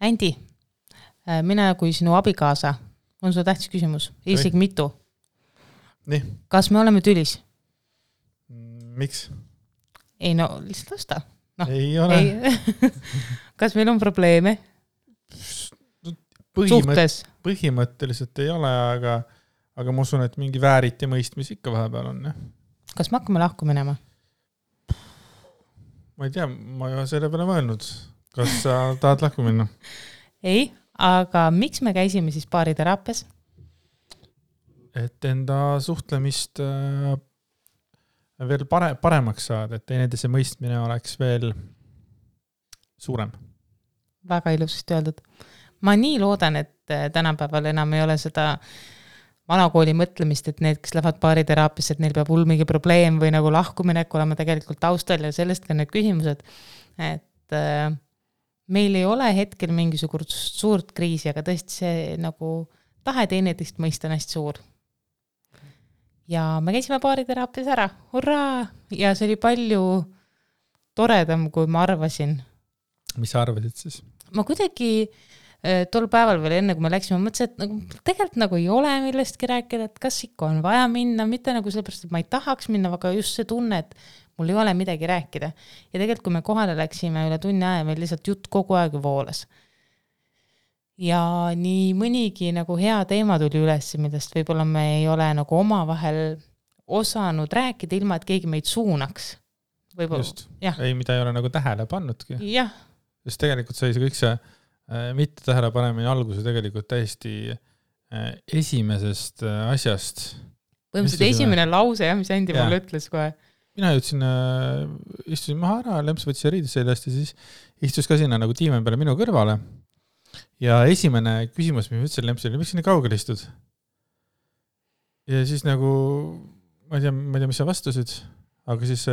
Andi, mina kui sinu abikaasa, on sul tähtis küsimus, isegi mitu. Nii. Kas me oleme tülis? Miks? Ei no, lihtsalt vasta. No, ei ole. Kas meil on probleeme? Suhtes? Põhimõtteliselt ei ole, aga ma usun, et mingi vääriti mõistmis ikka vahepeal on. Ja. Kas me hakkame lahku minema? Ma ei tea, ma ei ole selle peale mõelnud. Kas sa tahad lahku minna? Ei, aga miks me käisime siis baariteraapias? Et enda suhtlemist veel paremaks saada, et teineteise mõistmine oleks veel suurem. Väga ilusasti öeldud. Ma nii loodan, et tänapäeval enam ei ole seda vanakooli mõtlemist, et need, kes lähevad baariteraapias, et neil peab mingi probleem või nagu lahkuminek olema tegelikult taustal ja sellest ka need küsimused, et meil ei ole hetkel mingisugust suurt kriisi, aga tõesti see nagu tahe teineteist mõista on hästi suur. Ja me käisime baariteraapias ära, hurraa! Ja see oli palju toredam, kui ma arvasin. Mis sa arvasid siis? Ma kuidagi tol päeval veel enne, kui me läksime, mõtlesin, et nagu, tegelikult nagu ei ole millestki rääkida, et kas ikka on vaja minna, mitte nagu sellepärast, et ma ei tahaks minna, aga just see tunne, et mul ei ole midagi rääkida. Ja tegelikult, kui me kohale läksime üle tunni aja, meil lihtsalt jutt kogu aeg voolas. Ja nii mõnigi nagu hea teema tuli üles, millest võib-olla me ei ole nagu omavahel osanud rääkida, ilma et keegi meid suunaks. Just, ei, mida ei ole nagu tähele pannudki. Jah. Just tegelikult sai see kõik see mitte tähele panemine alguse tegelikult täiesti esimesest asjast. Põhimõtteliselt esimene lause, mis Andi mulle ütles kohe. Mina jõudsin, istusin maha ära, Lemps võttis riidis sellest ja siis istus ka sinna nagu tiimen peale minu kõrvale. Ja esimene küsimus, mis ütlesin Lempsile, miks nii kaugel istud? Ja siis nagu, ma ei tea, mis sa vastusid, aga siis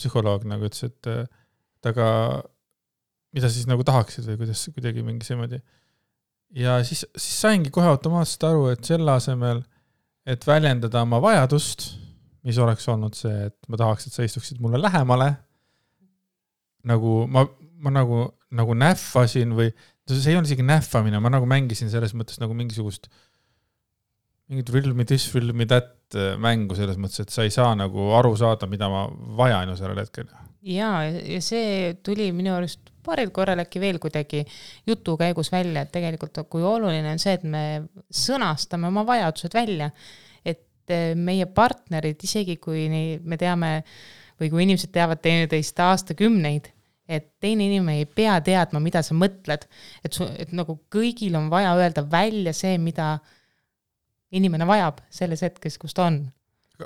psühholoog nagu ütles, et aga mida siis nagu tahaksid või kuidas kuidagi mingi seemoodi. Ja siis saingi kohe automaatselt aru, et selle asemel, et väljendada oma vajadust, mis oleks olnud see, et ma tahaks, et sa istuksid mulle lähemale, nagu ma nagu näffasin või see ei olnud isegi näffamine, ma nagu mängisin selles mõttes nagu mingit thrill me this, thrill me that mängu selles mõttes, et sa ei saa nagu aru saada, mida ma vajan ju sellel hetkel. Ja see tuli minu arust paaril korral äkki veel kuidagi jutu käigus välja, et tegelikult kui oluline on see, et me sõnastame oma vajadused välja, et meie partnerid, isegi kui me teame või kui inimesed teavad teineteist aastakümneid, et teine inimene ei pea teadma, mida sa mõtled, et nagu kõigil on vaja öelda välja see, mida inimene vajab selles hetkes, kus ta on.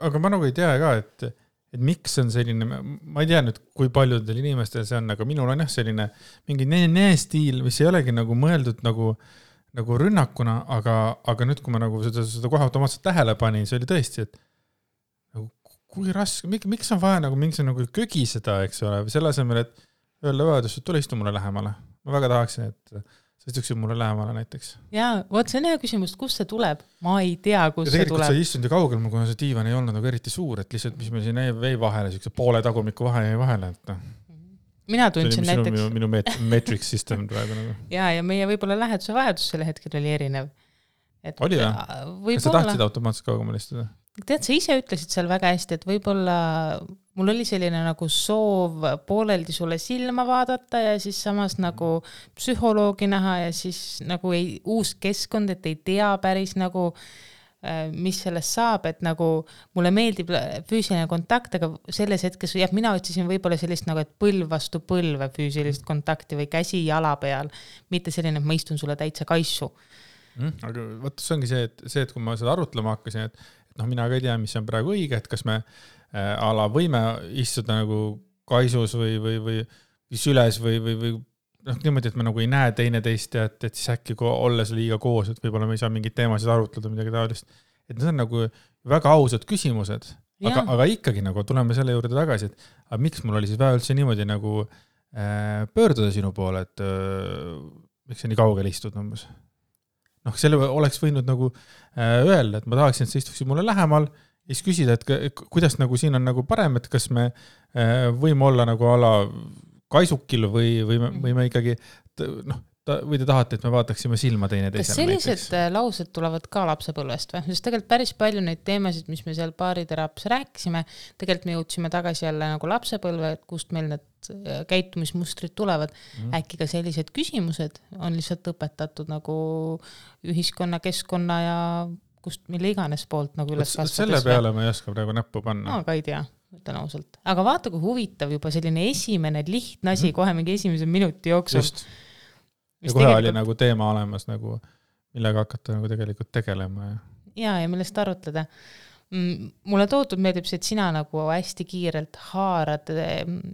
Aga ma nagu ei tea ka, et miks on selline, ma ei tea nüüd, kui paljudel inimestel see on, aga minul on selline mingi stiil, mis ei olegi nagu mõeldud nagu rünnakuna, aga nüüd, kui ma nagu seda kohe automaatselt tähele panin, see oli tõesti, et nagu, kui raske, miks on vaja nagu mingi nagu kögi seda, eks ole, või selle asemel, et öelda vajadus, et tule istu mulle lähemale. Ma väga tahaksin, et sa istuksid mulle lähemale näiteks. Jaa, võt see on hea küsimus, kust see tuleb? Ma ei tea, kus see tuleb. Ja tegelikult sa istunud ju kaugel, kuna see diivan ei olnud nagu eriti suur, et lihtsalt, mis meil siin vei vahele, poole tagumiku vahe vahele. Et mina tundsin näiteks... Minu metrics system praegu nagu. Ja meie võib-olla läheduse vajadus selle hetkel oli erinev. Oli või? Kas sa tahtsid automaatselt kaugemal istuda? Tead, sa ise ütlesid seal väga hästi, et võib-olla mul oli selline nagu soov pooleldi sulle silma vaadata ja siis samas nagu psühholoogi näha ja siis nagu uus keskkond, et ei tea päris nagu, mis sellest saab, et nagu mulle meeldib füüsiline kontakt, aga selles hetkes, mina otsisin võib-olla sellist nagu, et põlv vastu põlve füüsilist kontakti või käsi jala peal, mitte selline, et ma istun sulle täitsa kaissu. Aga võtta, see ongi see, et kui ma seda arutlema hakkasin, et mina ka ei tea, mis on praegu õige, et kas me võime istuda nagu kaisus või süles või niimoodi, et me nagu ei näe teineteist ja et siis äkki olles liiga koos, et võib-olla me ei saa mingid teemasid arutleda, midagi taolist. Et need on nagu väga ausad küsimused, aga ikkagi nagu tuleme selle juurde tagasi, et miks mul oli siis väga üldse niimoodi nagu pöörduda sinu poole, et miks sa nii kaugel istud umbes. Selle oleks võinud nagu öelda, et ma tahaksin, et sa istuksid mulle lähemal ja siis küsida, et kuidas nagu siin on nagu parem, et kas me võime olla nagu ala kaisukil või me ikkagi või te tahate, et me vaataksime silma teine kas teisele sellised laused tulevad ka lapsepõlvest või? Sest tegelikult päris palju neid teemasid, mis me seal baariteraapias rääkisime, tegelikult me jõudsime tagasi jälle nagu lapsepõlve, et kust meil need käitumismustrid tulevad. Äkki ka sellised küsimused on lihtsalt õpetatud nagu ühiskonna, keskkonna ja kust mille iganes poolt nagu üles kasvades. Selle peale ma ei oska praegu näppu panna. Ka ei tea, ütlen ausalt. Aga vaata, kui huvitav juba selline esimene lihtne asi kohe mingi esimese minuti jooksul. Just. Ja kohe oli nagu teema olemas, nagu, millega hakata nagu tegelikult tegelema. Ja millest arutleda. Mulle toodud meeldib see, et sina nagu hästi kiirelt haarad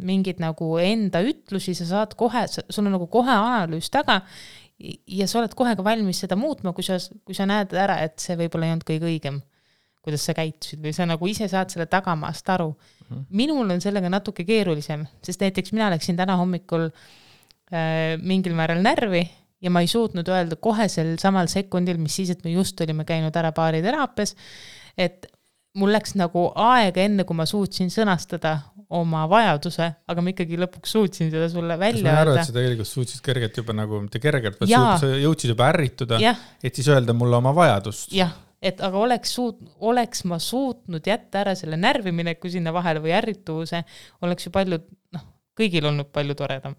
mingid nagu enda ütlusi, sa saad kohe, sul on nagu kohe analüüs taga ja sa oled kohe ka valmis seda muutma, kui sa näed ära, et see võib-olla ei olnud kõige õigem, kuidas sa käitusid või sa nagu ise saad selle tagamaast aru. Minul on sellega natuke keerulisem, sest näiteks mina läksin täna hommikul mingil määral närvi ja ma ei suutnud öelda kohe sel samal sekundil, mis siis, et me just olime käinud ära baariteraapias, et mul läks nagu aega enne, kui ma suutsin sõnastada oma vajaduse, aga ma ikkagi lõpuks suutsin seda sulle välja öelda. Ma arvan, et sa tegelikult suutsid kergelt juba nagu, mitte kergelt, sa jõudsid juba ärrituda, et siis öelda mulle oma vajadust. Jah, et aga oleks ma suutnud jätta ära selle närvimineku sinna vahele või ärrituvuse, oleks ju palju, kõigil olnud palju toredam.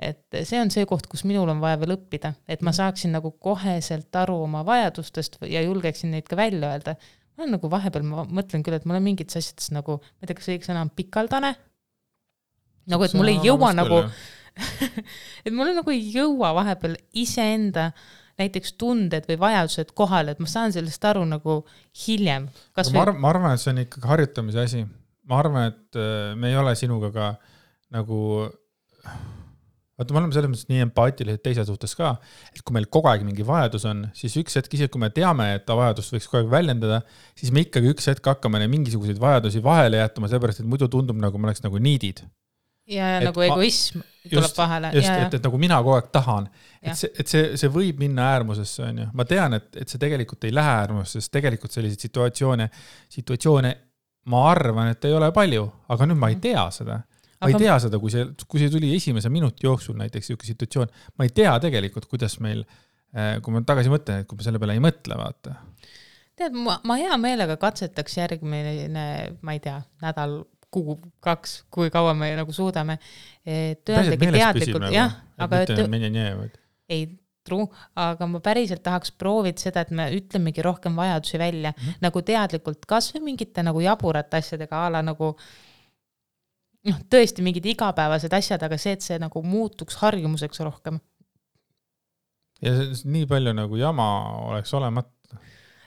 Et see on see koht, kus minul on vaja veel õppida, et ma saaksin nagu koheselt aru oma vajadustest ja julgeksin neid ka välja öelda. Ma nagu vahepeal, ma mõtlen küll, et mul on mingid asjades nagu, ma ei tea, kas õige sõna on pikaldane, nagu et mul ei jõua nagu, et mul nagu ei jõua vahepeal iseenda näiteks tunded või vajadused kohale, et ma saan sellest aru nagu hiljem. Ma arvan, et see on ikkagi harjutamise asi. Ma arvan, et me ei ole sinuga ka nagu... Vaata, me oleme selles mõttes nii empaatilised teise suhtes ka, et kui meil kogu aeg mingi vajadus on, siis üks hetk, isegi kui me teame, et ta vajadust võiks kogu aeg väljendada, siis me ikkagi üks hetk hakkame mingisuguseid vajadusi vahele jätama, sellepärast, et muidu tundub, nagu me oleks nagu niidid. Ja et nagu egoism tuleb vahele. Just, et nagu mina kogu aeg tahan. Et see võib minna äärmusesse, on ju. Ma tean, et see tegelikult ei lähe äärmusesse, sest tegelikult selliseid situatsioone ma arvan, et ei ole palju, aga nüüd ma ei tea seda. Ma ei tea seda, kui see tuli esimese minuti jooksul näiteks siuke situatsioon, ma ei tea tegelikult, kuidas meil, kui ma tagasi mõtlen, et kui ma selle peale ei mõtle, vaata. Tead, ma hea meelega katsetaks järgmine, ma ei tea, nädal, kuu, 2, kui kaua me nagu suudame. Päriselt meeles püsib nagu, ei, true, aga ma päriselt tahaks proovida seda, et me ütlemegi rohkem vajadusi välja, nagu teadlikult kas või mingite nagu jaburate asjadega ala nagu tõesti mingid igapäevased asjad, aga see, et see nagu muutuks harjumuseks rohkem. Ja nii palju nagu jama oleks olemata.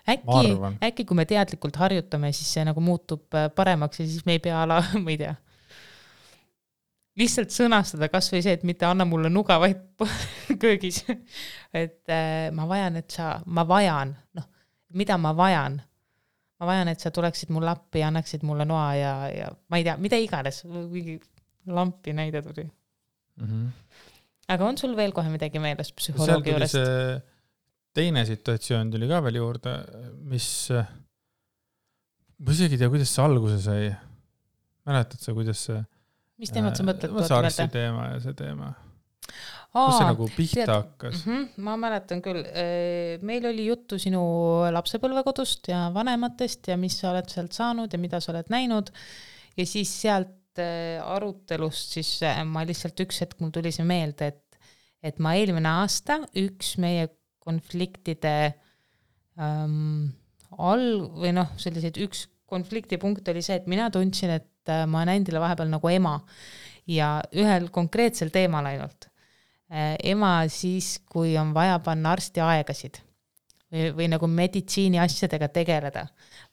Äkki kui me teadlikult harjutame, siis see nagu muutub paremaks ja siis me ei pea ala, ma ei tea. Lihtsalt sõnastada kas või see, et mitte anna mulle nuga, vaid köögis. Et ma vajan, mida ma vajan? Ma vajan, et sa tuleksid mulle appi ja annaksid mulle noa ja ma ei tea, mida iganes, mingi lampi näide tuli. Aga on sul veel kohe midagi meeles psühholoogi juurest? Seal tuli see teine situatsioon tuli ka veel juurde, mis ma isegi tea, kuidas see alguse sai. Mäletad sa, kuidas see mis teemad sa mõtled? Sarsi teema ja see teema. Kus see nagu pihta hakkas? Ma mäletan küll. Meil oli juttu sinu lapsepõlvekodust ja vanematest ja mis sa oled sealt saanud ja mida sa oled näinud. Ja siis sealt arutelust siis ma lihtsalt üks hetk mul tuli see meelde, et ma eelmine aasta üks meie konfliktide või selliseid üks konfliktipunkt oli see, et mina tundsin, et ma olen endile vahepeal nagu ema ja ühel konkreetsel teemal ainult. Ema siis, kui on vaja panna arsti aegasid või nagu meditsiini asjadega tegeleda.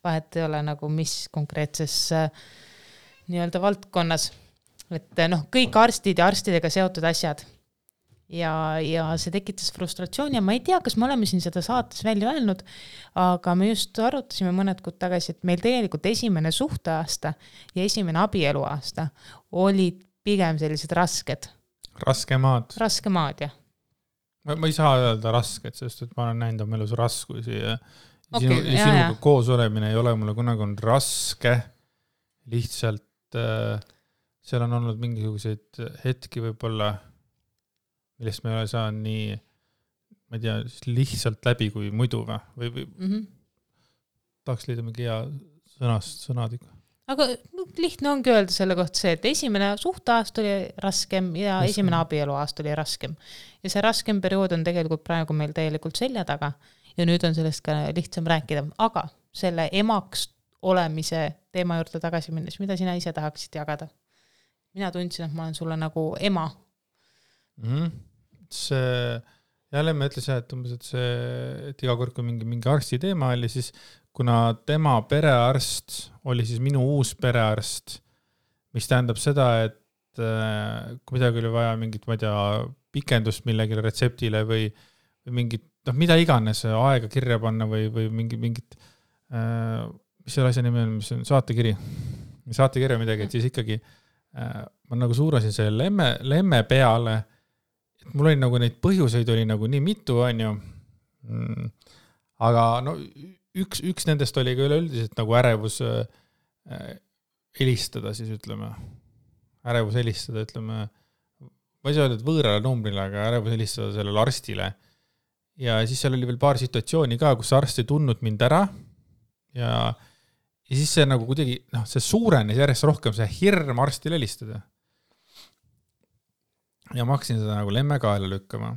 Vahet ei ole nagu mis konkreetses nii-öelda valdkonnas. Et kõik arstid ja arstidega seotud asjad. Ja see tekitas frustratsiooni ja ma ei tea, kas me oleme siin seda saates välja öelnud, aga me just arutasime mõned kuud tagasi, et meil tegelikult esimene suhteaasta ja esimene abieluaasta olid pigem sellised rasked. Raskemaad, jah. Ma ei saa öelda rasked, sest et ma olen näinud oma elus raskusi ja sinuga koos olemine ei ole mulle kunagi on raske. Lihtsalt seal on olnud mingisuguseid hetki võib-olla, millest me ei ole saanud nii, ma ei tea, lihtsalt läbi kui muidu või tahaks leida mingi hea sõnad ikka. Aga lihtne ongi öelda selle kohta see, et esimene suhteaast oli raskem ja esimene abieluaast oli raskem. Ja see raskem periood on tegelikult praegu meil täielikult selja taga ja nüüd on sellest ka lihtsam rääkida. Aga selle emaks olemise teema juurde tagasi minnes, mida sina ise tahaksid jagada? Mina tundsin, et ma olen sulle nagu ema. See, jälle me ütlesin, et iga kord, kui mingi arsti teema oli, siis kuna tema perearst oli siis minu uus perearst, mis tähendab seda, et kui midagi oli vaja mingit, ma ei tea, pikendust millegile retseptile või mingit, mida iganes aega kirja panna või mingit, mis selle asja nimi on, mis on saatekirja midagi, et siis ikkagi ma nagu suurasin selle lemme peale, et mul oli nagu neid põhjuseid oli nagu nii mitu, on ju. Aga no üks nendest oli ka üleüldiselt nagu ärevus helistada siis ütleme. Ärevus helistada, ütleme, ma ei saa öelda, et võõrale numbrile, aga ärevus helistada sellele arstile. Ja siis seal oli veel paar situatsiooni ka, kus arst ei tundnud mind ära ja siis see nagu kuidagi, see suurenes järjest rohkem, see hirm arstile helistada. Ja ma hakkasin seda nagu lemme kaela lükkama.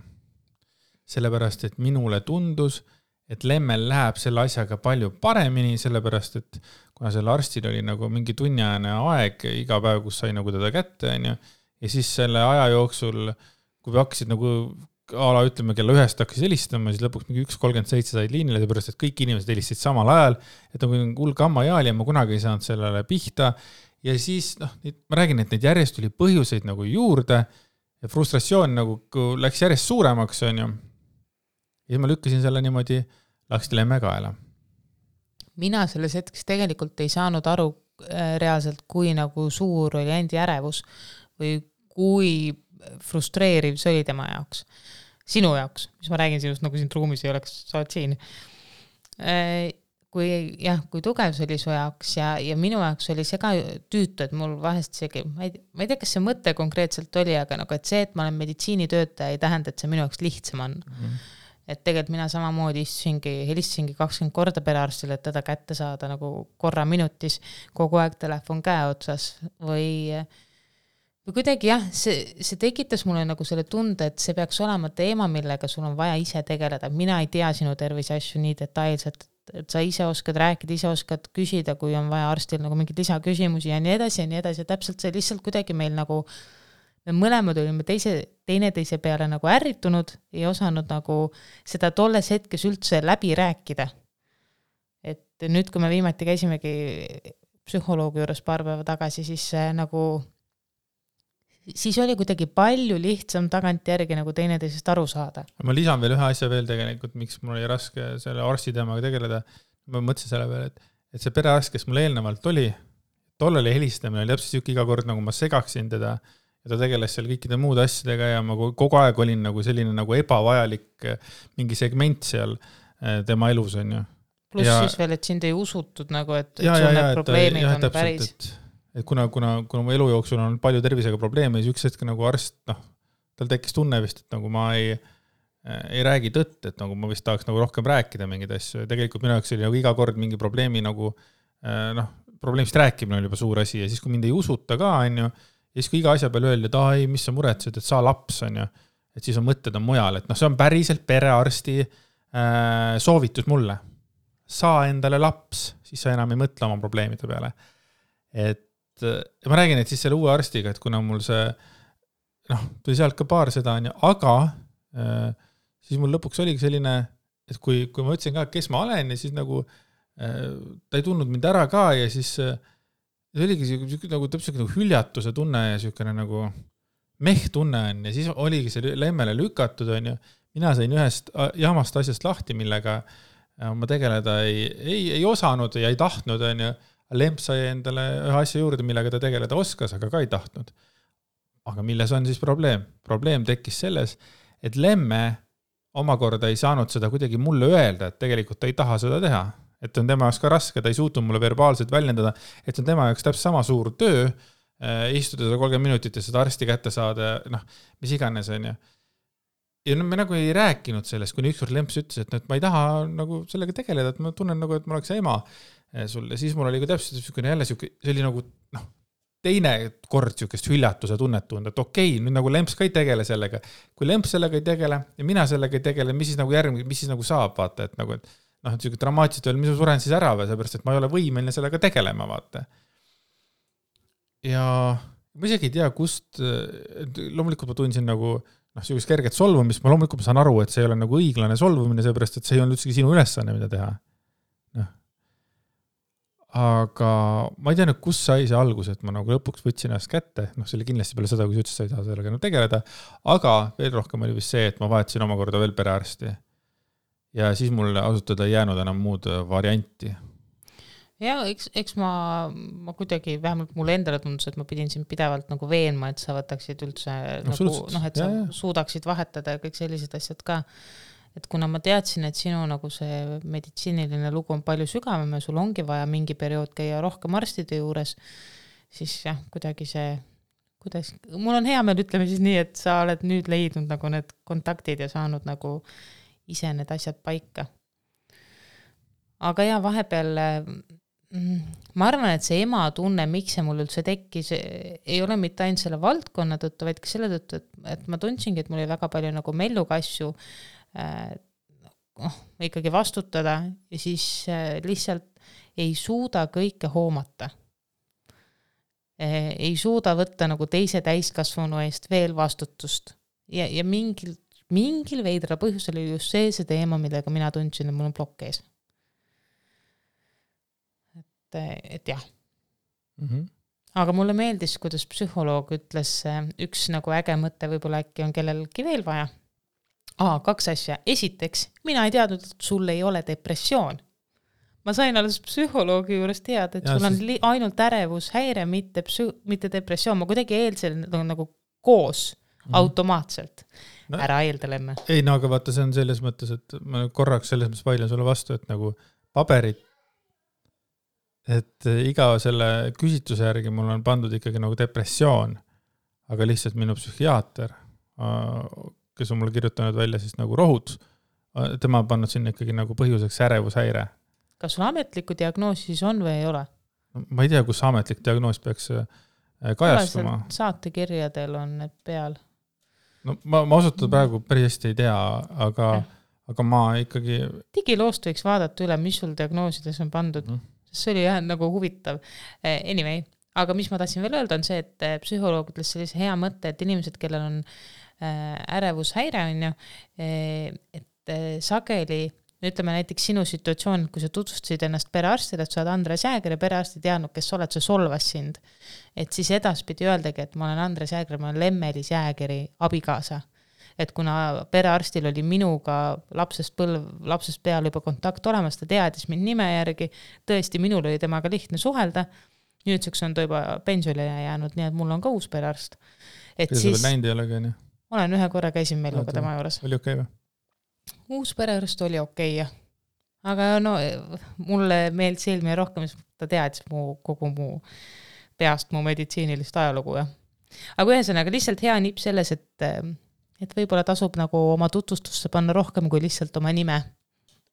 Sellepärast, et minule tundus, et lemmel läheb selle asjaga palju paremini, sellepärast, et kuna selle arstil oli nagu mingi tunniajane aeg iga päev, kus sai nagu teda kätte, ja siis selle aja jooksul, kui hakkasid nagu ütleme, kella 1 hakkas helistama, siis lõpuks mingi 1.37 said liinile, sellepärast, et kõik inimesed helistasid samal ajal, et nagu hull kammajaali ja ma kunagi ei saanud sellele pihta. Ja siis, ma räägin, et neid järjest tuli põhjuseid nagu juurde ja frustratsioon nagu läks järjest suuremaks, on ju. Ja ma lükkasin selle niimoodi, laksti lemme kaela. Mina selles hetkes tegelikult ei saanud aru reaalselt, kui nagu suur oli endi ärevus või kui frustreeriv see oli tema jaoks. Sinu jaoks, mis ma räägin sinust, nagu siin ruumis ei oleks, sa oled siin. Kui tugev see oli su jaoks ja minu jaoks oli see ka tüütu, et mul vahest isegi, ma ei tea, kas see mõte konkreetselt oli, aga nagu, et see, et ma olen meditsiinitöötaja, ei tähenda, et see minu jaoks lihtsam on. Et tegelikult mina samamoodi helistasingi 20 korda perearstile, et teda kätte saada nagu korra minutis, kogu aeg telefon käe otsas või kuidagi see tekitas mulle nagu selle tunde, et see peaks olema teema, millega sul on vaja ise tegeleda. Mina ei tea sinu tervise asju nii detailselt, et sa ise oskad rääkida, ise oskad küsida, kui on vaja arstil nagu mingid lisaküsimusi ja nii edasi. Ja täpselt see lihtsalt kuidagi meil nagu, me mõlemad olime teineteise peale nagu ärritunud, ei osanud nagu seda tolles hetkes üldse läbi rääkida. Et nüüd, kui me viimati käisimegi psühholoogi juures paar päeva tagasi, siis oli kuidagi palju lihtsam tagantjärgi nagu teineteisest aru saada. Ma lisan veel ühe asja veel tegelikult, miks mul oli raske selle arsti teemaga tegeleda. Ma mõtlesin selle peale, et see perearst, kes mul eelnevalt oli, tol oli helistamine, oli täpselt siuke iga kord, nagu ma segaksin teda ja ta tegeles seal kõikide muude asjadega ja ma kogu aeg olin nagu selline nagu ebavajalik mingi segment seal tema elus, on ju. Plus siis veel, et sind ei usutud nagu, et sul need probleemid on päris. Et kuna mu elu jooksul on palju tervisega probleeme, siis üks hetk nagu arst, tal tekkis tunne vist, et nagu ma ei räägi tõtt, et nagu ma vist tahaks nagu rohkem rääkida mingid asju. Tegelikult minu jaoks oli nagu iga kord mingi probleemi nagu, probleemist rääkimine oli juba suur asi ja siis, kui mind ei usuta ka, on ju, ja siis, kui iga asja peale öeldi, et ei, mis sa muretsed, et sa laps, on ju, et siis on mõtted on mujal, et see on päriselt perearsti soovitus mulle. Saa endale laps, siis sa enam ei mõtle oma probleemide peale. Et ma räägin, et siis selle uue arstiga, et kuna mul see, tuli sealt ka paar seda, aga siis mul lõpuks oligi selline, et kui ma ütlesin ka, kes ma olen ja siis nagu ta ei tundnud mind ära ka ja siis see oligi nagu täpselt nagu hüljatuse tunne ja selline nagu tunne on ja siis oligi see lemmele lükatud, on ju. Mina sain ühest jamast asjast lahti, millega ma tegeleda ei osanud ja ei tahtnud, on ju. Lemp sai endale ühe asja juurde, millega ta tegeleda oskas, aga ka ei tahtnud. Aga milles on siis probleem? Probleem tekkis selles, et lemme omakorda ei saanud seda kuidagi mulle öelda, et tegelikult ta ei taha seda teha. Et on tema jaoks ka raske, ta ei suutnud mulle verbaalselt väljendada, et see on tema jaoks täpselt sama suur töö, istuda 30 minutit ja seda arsti kätte saada, mis iganes on ju. ja me nagu ei rääkinud sellest, kuni ükskord Lemps ütles, et ma ei taha nagu sellega tegeleda, et ma tunnen nagu, et ma oleks ema sulle. Siis mul oli ka täpselt jälle see oli nagu teine kord siukest hüljatuse tunnet tunda, et okei, nüüd nagu Lemps ka ei tegele sellega. Kui Lemps sellega ei tegele ja mina sellega ei tegele, mis siis nagu järgmine, mis siis nagu saab, vaata, et nagu, et siuke dramaatiliselt veel, mis ma suren siis ära või, seepärast, et ma ei ole võimeline sellega tegelema, vaata. Ja ma isegi ei tea, kust, loomulikult ma tundsin nagu siukest kerget solvumist, ma loomulikult saan aru, et see ei ole nagu õiglane solvumine, seepärast, et see ei olnud üldse sinu ülesanne, mida teha. Aga ma ei tea nüüd, kus sai see algus, et ma nagu lõpuks võtsin ennast kätte, see oli kindlasti peale seda, kui sa ütlesid, sa ei taha sellega tegeleda, aga veel rohkem oli vist see, et ma vahetasin omakorda veel perearsti. Ja siis mul asutada ei jäänud enam muud varianti. Ja eks ma kuidagi, vähemalt mulle endale tundus, et ma pidin siin pidevalt nagu veenma, et sa võtaksid üldse et sa suudaksid vahetada ja kõik sellised asjad ka. Et kuna ma teadsin, et sinu nagu see meditsiiniline lugu on palju sügavam ja sul ongi vaja mingi periood käia rohkem arstide juures, siis jah, kuidagi see, mul on hea meel, ütleme siis nii, et sa oled nüüd leidnud nagu need kontaktid ja saanud nagu ise need asjad paika. Aga ja vahepeal ma arvan, et see ema tunne, miks see mul üldse tekkis, ei ole mitte ainult selle valdkonna tõttu, vaid ka selle tõttu, et ma tundsingi, et mul oli väga palju nagu melluga asju ikkagi vastutada ja siis lihtsalt ei suuda kõike hoomata. Ei suuda võtta nagu teise täiskasvanu eest veel vastutust. Ja mingil veidral põhjusel oli just see teema, millega mina tundsin, et mul on plokk ees. Et jah. Aga mulle meeldis, kuidas psühholoog ütles, üks nagu äge mõte võib-olla äkki on kellelgi veel vaja. 2 asja. Esiteks, mina ei teadnud, et sul ei ole depressioon. Ma sain alles psühholoogi juures teada, et sul on ainult ärevushäire, mitte depressioon. Ma kuidagi eeldsin nagu koos automaatselt. Ära eeldelemme. Ei, aga vaata, see on selles mõttes, et ma korraks selles mõttes vaidlen sulle vastu, et nagu paberid, et iga selle küsitluse järgi mul on pandud ikkagi nagu depressioon, aga lihtsalt minu psühhiaater, kes on mulle kirjutanud välja siis nagu rohud, tema on pannud sinna ikkagi nagu põhjuseks ärevushäire. Kas sul ametlikku diagnoosi siis on või ei ole? Ma ei tea, kus ametlik diagnoos peaks kajastuma. Saatekirjadel on need peal. No, ma osutada praegu päris hästi ei tea, aga ma ikkagi... Digiloost võiks vaadata üle, mis sul diagnoosides on pandud. See oli jah nagu huvitav. Anyway, aga mis ma tahtsin veel öelda on see, et psühholoog ütles sellise hea mõtte, et inimesed, kellel on ärevushäire on ju, et sageli, ütleme näiteks sinu situatsioon, kui sa tutvustasid ennast perearstile, et sa oled Andres Jääger ja perearsti teadnud, kes oled, see solvas sind. Et siis edaspidi öeldagi, et ma olen Andres Jääger, ma olen Lemmelis Jäägeri abikaasa. Et kuna perearstil oli minuga lapsest peale juba kontakt olemas, ta teadis mind nime järgi, tõesti minul oli temaga lihtne suhelda, nüüdseks on ta juba pensionile jäänud, nii et mul on ka uus perearst. Et ja siis... näinud ei ole ka, nii? Olen ühe korra käisin Melluga tema juures. Oli okei või? Uus perearst oli okei, jah. Aga no, mulle meeldis eelmine rohkem, ta teadis kogu mu peast mu meditsiinilist ajalugu. Ja. Aga ühesõnaga lihtsalt hea nipp selles, et võib-olla tasub nagu oma tutvustusse panna rohkem kui lihtsalt oma nime.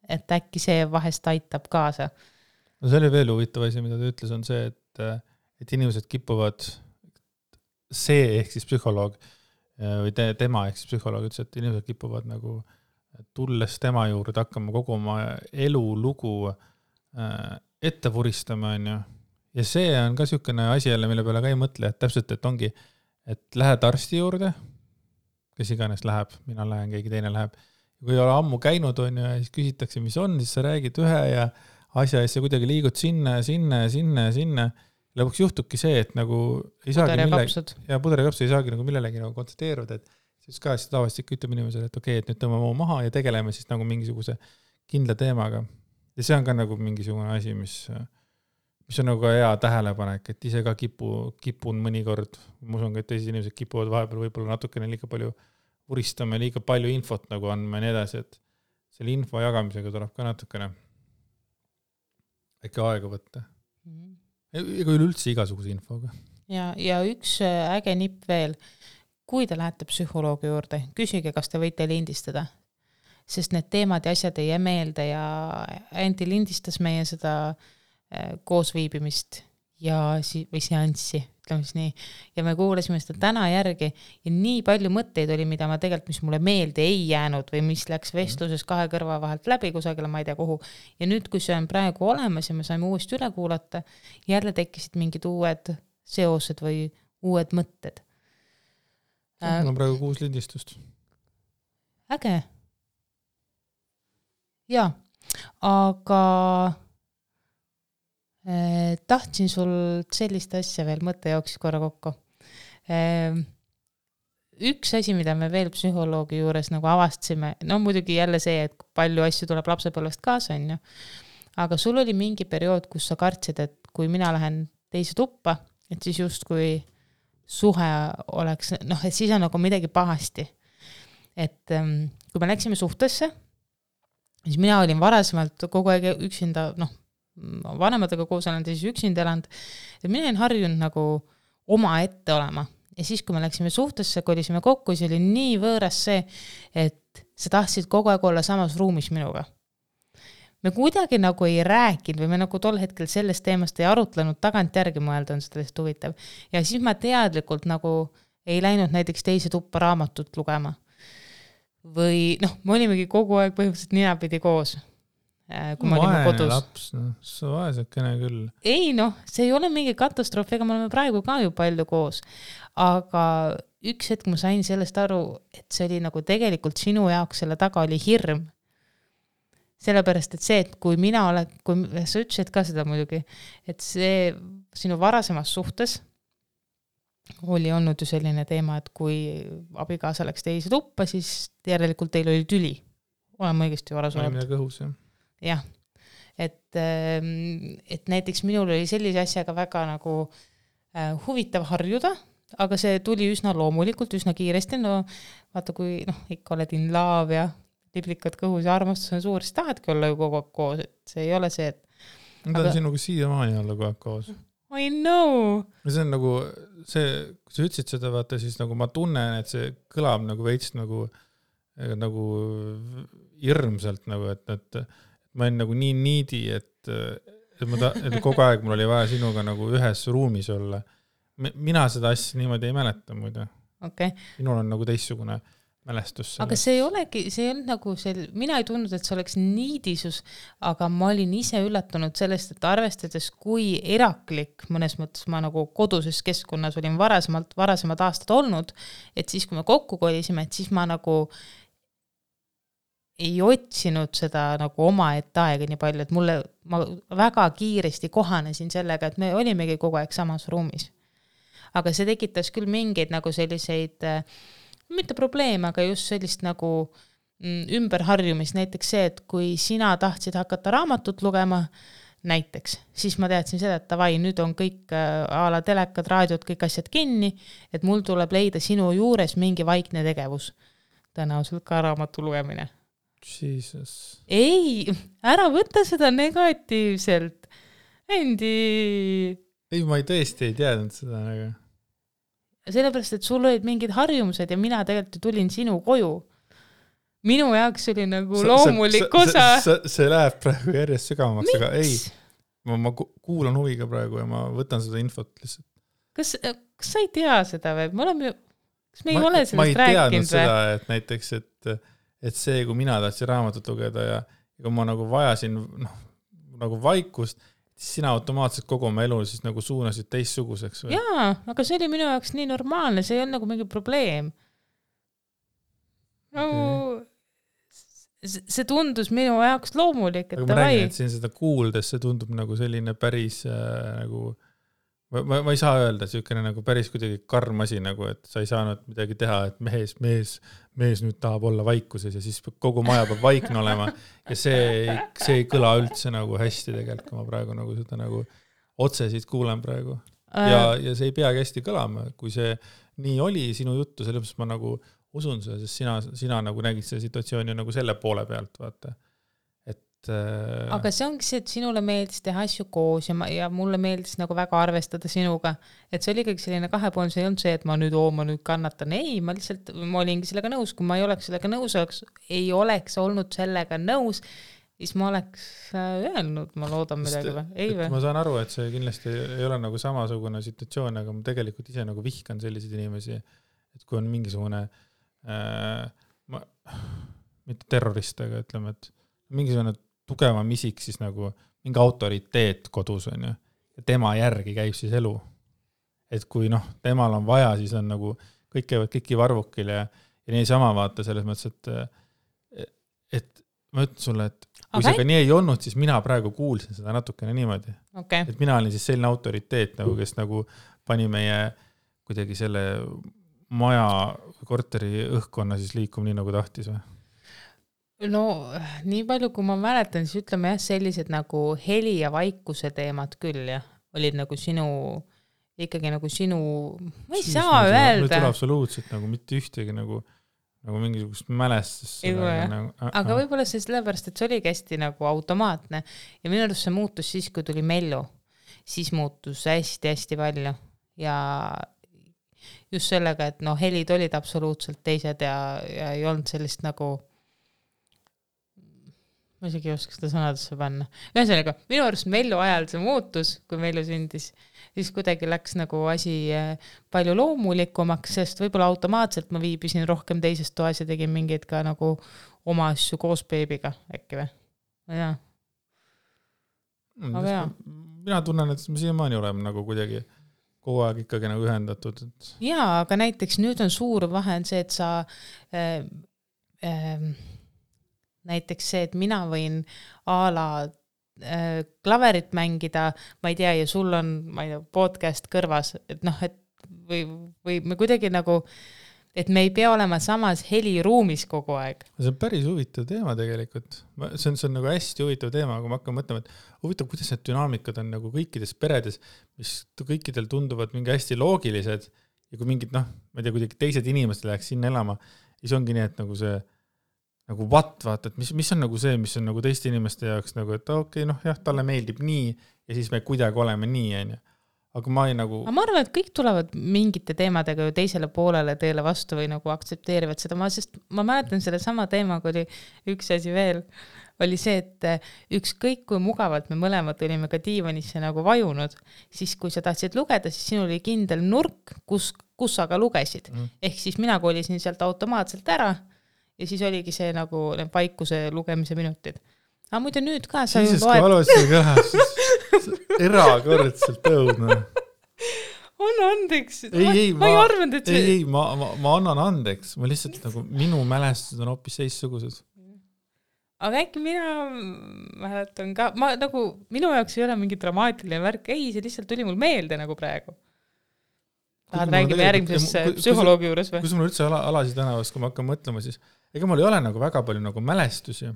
Et äkki see vahest aitab kaasa. No see oli veel huvitav asi, mida ta ütles, on see, et inimesed kipuvad ehk siis psühholoog või tema ehk siis psühholoog ütles, et inimesed kipuvad nagu tulles tema juurde hakkama kogu oma elulugu ette vuristama, on ju. Ja see on ka niisugune asi jälle, mille peale ka ei mõtle, et täpselt, et ongi, et lähed arsti juurde, kes iganes läheb, mina lähen, keegi teine läheb. Ja kui ei ole ammu käinud, on ju, ja siis küsitakse, mis on, siis sa räägid ühe ja asja, ja sa kuidagi liigud sinna. Lõpuks juhtubki see, et nagu ei saagi puder ja kapsud ei saagi nagu millelegi nagu kontsentreeruda, et siis ka siis tavaliselt ütleb inimesele, et okei, et nüüd tõmbame maha ja tegeleme siis nagu mingisuguse kindla teemaga. Ja see on ka nagu mingisugune asi, mis on nagu hea tähelepanek, et ise ka kipun mõnikord, ma usun ka, et teised inimesed kipuvad vahepeal võib-olla natukene liiga palju uristama ja liiga palju infot nagu andma ja nii edasi, et selle info jagamisega tuleb ka natukene äkki aega võtta. Ega üleüldse igasuguse infoga. Ja üks äge nipp veel. kui te lähete psühholoogi juurde, küsige, kas te võite lindistada, sest need teemad ja asjad ei jää meelde ja Anti lindistas meie seda koosviibimist või seanssi, ütleme siis nii, ja me kuulasime seda täna järgi ja nii palju mõtteid oli, mida ma tegelikult, mis mulle meelde ei jäänud või mis läks vestluses kahe kõrva vahelt läbi kusagile, ma ei tea kuhu. Ja nüüd, kui see on praegu olemas ja me saime uuesti üle kuulata, jälle tekkisid mingid uued seosed või uued mõtted. Mul on praegu 6 lindistust. Äge. Jaa, aga tahtsin sul sellist asja veel mõtte jooksis korra kokku. Üks asi, mida me veel psühholoogi juures nagu avastasime, no muidugi jälle see, et palju asju tuleb lapsepõlvest kaasa, on ju. Aga sul oli mingi periood, kus sa kartsid, et kui mina lähen teise tuppa, et siis just kui suhe oleks, noh, et siis on nagu midagi pahasti. Et kui me läksime suhtesse, siis mina olin varasemalt kogu aeg üksinda, noh, vanematega koos olen siis üksinda elanud, et mina olen harjunud nagu oma ette olema. Ja siis, kui me läksime suhtesse, kolisime kokku, siis oli nii võõras see, et sa tahtsid kogu aeg olla samas ruumis minuga. Me kuidagi nagu ei rääkinud või me nagu tol hetkel sellest teemast ei arutlenud, tagant järgi mõelda on seda lihtsalt huvitav. Ja siis ma teadlikult nagu ei läinud näiteks teise tuppa raamatut lugema. Või noh, me olimegi kogu aeg põhimõtteliselt ninapidi koos. Kui me olime kodus. Laps, no, sa vaesekene küll. Ei noh, see ei ole mingi katastroof, ega me oleme praegu ka ju palju koos. Aga üks hetk ma sain sellest aru, et see oli nagu tegelikult sinu jaoks selle taga oli hirm. Sellepärast, et see, et kui mina olen, kui sa ütlesid ka seda muidugi, et see sinu varasemas suhtes oli olnud ju selline teema, et kui abikaasa läks teise tuppa, siis järelikult teil oli tüli. Olen õigesti varas olnud. Oli midagi õhus, jah. Jah, et näiteks minul oli sellise asjaga väga nagu huvitav harjuda, aga see tuli üsna loomulikult, üsna kiiresti, no vaata kui ikka oled in love ja liblikad kõhus ja armastus on suur, siis tahadki olla ju kogu aeg koos, et see ei ole see, et ma tahan sinuga siiamaani olla kogu aeg koos. I know! See on nagu, kui sa ütlesid seda, vaata, siis nagu ma tunnen, et see kõlab nagu veits nagu hirmsalt, nagu, et ma olen nagu nii niidi, et kogu aeg mul oli vaja sinuga nagu ühes ruumis olla. Mina seda asja niimoodi ei mäleta muide. Okay. Minul on nagu teistsugune mälestus. Aga see ei olegi, see on nagu mina ei tundnud, et see oleks niidisus, aga ma olin ise üllatunud sellest, et arvestades kui eraklik mõnes mõttes ma nagu koduses keskkonnas olin varasemad aastad olnud, et siis kui me kokku kolisime, et siis ma nagu ei otsinud seda nagu oma aega nii palju, et ma väga kiiresti kohanesin sellega, et me olimegi kogu aeg samas ruumis. Aga see tekitas küll mingeid nagu selliseid, mitte probleeme, aga just sellist nagu ümberharjumist, näiteks see, et kui sina tahtsid hakata raamatut lugema, näiteks, siis ma teadsin seda, et tavai, nüüd on kõik a la telekad, raadiod, kõik asjad kinni, et mul tuleb leida sinu juures mingi vaikne tegevus. Tõenäoliselt ka raamatu lugemine. Jesus. Ei, ära võtta seda negatiivselt. Endi. Ei, ma tõesti ei teadnud seda. Aga... Sellepärast, et sul olid mingid harjumused ja mina tegelikult tulin sinu koju. Minu jaoks oli nagu loomulik osa. See läheb praegu järjest sügavamaks, aga ei. Ma kuulan huviga praegu ja ma võtan seda infot lihtsalt. Kas sa ei tea seda või? Kas me ei ole sellest rääkinud? Ma ei teadnud seda, et näiteks, et see, kui mina tahtsin raamatut lugeda ja kui ma nagu vajasin nagu vaikust, siis sina automaatselt kogu oma elu siis nagu suunasid teistsuguseks. Või? Jaa, aga see oli minu jaoks nii normaalne, see ei olnud nagu mingi probleem. Okay. See tundus minu jaoks loomulik. Aga ma räägin, et siin seda kuuldes, see tundub nagu selline päris nagu... Ma ei saa öelda, selline nagu päris kuidagi karm asi, nagu, et sa ei saanud midagi teha, et mees nüüd tahab olla vaikuses ja siis kogu maja peab vaikne olema ja see ei kõla üldse nagu hästi tegelikult, kui ma praegu nagu seda nagu otse siit kuulen praegu. Ja see ei peagi hästi kõlama, kui see nii oli sinu juttu, sellepärast ma nagu usun seda, sest sina nagu nägid selle situatsiooni nagu selle poole pealt, vaata. Et aga see ongi see, et sinule meeldis teha asju koos ja mulle meeldis nagu väga arvestada sinuga, et see oli ikkagi selline kahepoolne, see ei olnud see, et ma nüüd kannatan, ei, ma olingi sellega nõus, kui ma ei oleks sellega nõus, ei oleks olnud sellega nõus, siis ma oleks öelnud, ma loodan midagi või, ei või? Ma saan aru, et see kindlasti ei ole nagu samasugune situatsioon, aga ma tegelikult ise nagu vihkan selliseid inimesi, et kui on mingisugune mitte terrorist, aga ütleme, et mingisugune tugevam isik siis nagu mingi autoriteet kodus on ju, ja tema järgi käib siis elu. Et kui temal on vaja, siis on nagu kõik käivad kõiki varvukil ja nii sama vaata selles mõttes, et ma ütlen sulle, et kui see ka nii ei olnud, siis mina praegu kuulsin seda natukene niimoodi. Okay. Et mina olin siis selline autoriteet, nagu, kes nagu pani meie kuidagi selle maja korteri õhkkonna siis liikuma nii nagu tahtis või? No nii palju, kui ma mäletan, siis ütleme jah, sellised nagu heli ja vaikuse teemad küll jah, olid nagu ikkagi nagu sinu, ma ei saa öelda. Meil tuleb absoluutselt nagu mitte ühtegi nagu mingisugust mälestust. Aga võib-olla see sellepärast, et see oligi hästi nagu automaatne ja minu arust see muutus siis, kui tuli Mellu, siis muutus hästi-hästi palju ja just sellega, et helid olid absoluutselt teised ja ei olnud sellist nagu ma isegi ei oska seda sõnadesse panna. Ühesõnaga, minu arust Mellu ajal see muutus, kui Mellu sündis, siis kuidagi läks nagu asi palju loomulikumaks, sest võib-olla automaatselt ma viibisin rohkem teises toas ja tegin mingeid ka nagu oma asju koos beebiga, äkki või? Jaa. Mina tunnen, et me siiamaani oleme nagu kuidagi kogu aeg ikkagi nagu ühendatud. Jaa, aga näiteks nüüd on suur vahe on see, et sa näiteks see, et mina võin klaverit mängida, ma ei tea, ja sul on, ma ei tea, podcast kõrvas, et et või me kuidagi nagu, et me ei pea olema samas heliruumis kogu aeg. See on päris huvitav teema tegelikult. See on nagu hästi huvitav teema, kui ma hakkan mõtlema, et huvitav, kuidas need dünaamikad on nagu kõikides peredes, mis kõikidel tunduvad mingi hästi loogilised ja kui mingid, ma ei tea, kuidagi teised inimesed läheks sinna elama, siis ongi nii, et nagu see nagu vaata, et mis on nagu see, mis on nagu teiste inimeste jaoks nagu, et okei, jah, talle meeldib nii ja siis me kuidagi oleme nii, on ju. Aga ma ei nagu... Ma arvan, et kõik tulevad mingite teemadega ju teisele poolele teele vastu või nagu aktsepteerivad seda, sest ma mäletan selle sama teemaga oli üks asi veel, oli see, et ükskõik kui mugavalt me mõlemad olime ka diivanisse nagu vajunud, siis kui sa tahtsid lugeda, siis sinul oli kindel nurk, kus sa ka lugesid. Ehk siis mina kolisin sealt automaatselt ära ja siis oligi see nagu vaikuse lugemise minutid. Aga muidu nüüd ka sa ju loed... Valusin ka erakordselt õudne. On andeks. Ma ei arvanud, et see... Ei, ma annan andeks. Ma lihtsalt nagu minu mälestused on hoopis teistsugused. Aga äkki mina mäletan ka... minu jaoks ei ole mingi dramaatiline värk. Ei, see lihtsalt tuli mul meelde nagu praegu. Tahad räägime järgmises psühholoogi juures või? Kui mul üldse Alasi tänavas, kui ma hakkan mõtlema, siis ega mul ei ole nagu väga palju nagu mälestusi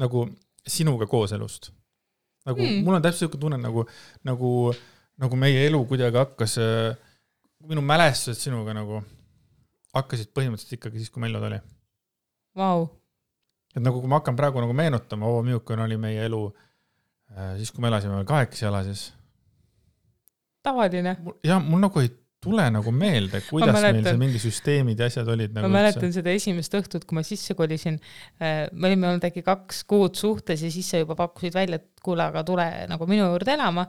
nagu sinuga koos elust. Nagu, mul on täpselt tunne nagu meie elu kuidagi hakkas, minu mälestused sinuga nagu hakkasid põhimõtteliselt ikkagi siis, kui Mellod oli. Vau. Et nagu kui ma hakkan praegu nagu meenutama, milline oli meie elu siis, kui me elasime 8 Alasis. Tavaline. Ja mul nagu ei tule nagu meelde, kuidas meil see mingi süsteemid ja asjad olid. Ma mäletan seda esimest õhtut, kui ma sisse kolisin. Me olime olnud äkki 2 kuud suhtes ja siis sa juba pakkusid välja, et kuule, aga tule nagu minu juurde elama.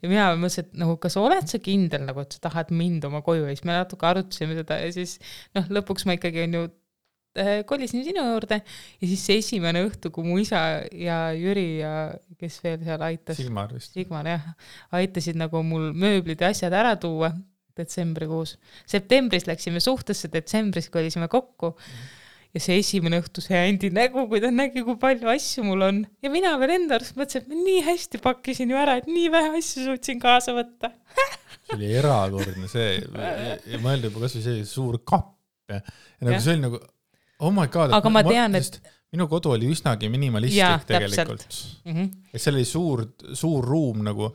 Ja mina mõtlesin, et nagu, kas oled sa kindel, nagu, et sa tahad mind oma koju ja siis me natuke arutasime seda ja siis lõpuks ma ikkagi on ju kolisin sinu juurde ja siis see esimene õhtu, kui mu isa ja Jüri ja kes veel seal aitas. Sigmar, jah. Aitasid nagu mul mööblid ja asjad ära tuua detsembrikuus. Septembris läksime suhtesse, detsembris kolisime kokku ja see esimene õhtu see Andi nägu, kui ta nägi, kui palju asju mul on. Ja mina veel enda arust mõtlesin, et ma nii hästi pakkisin ju ära, et nii vähe asju suutsin kaasa võtta. See oli erakordne see ja mõelda juba kas või see suur kapp ja nagu see oli nagu oh my god, aga ma tean, et minu kodu oli üsnagi minimalistlik tegelikult. Et see oli suur ruum nagu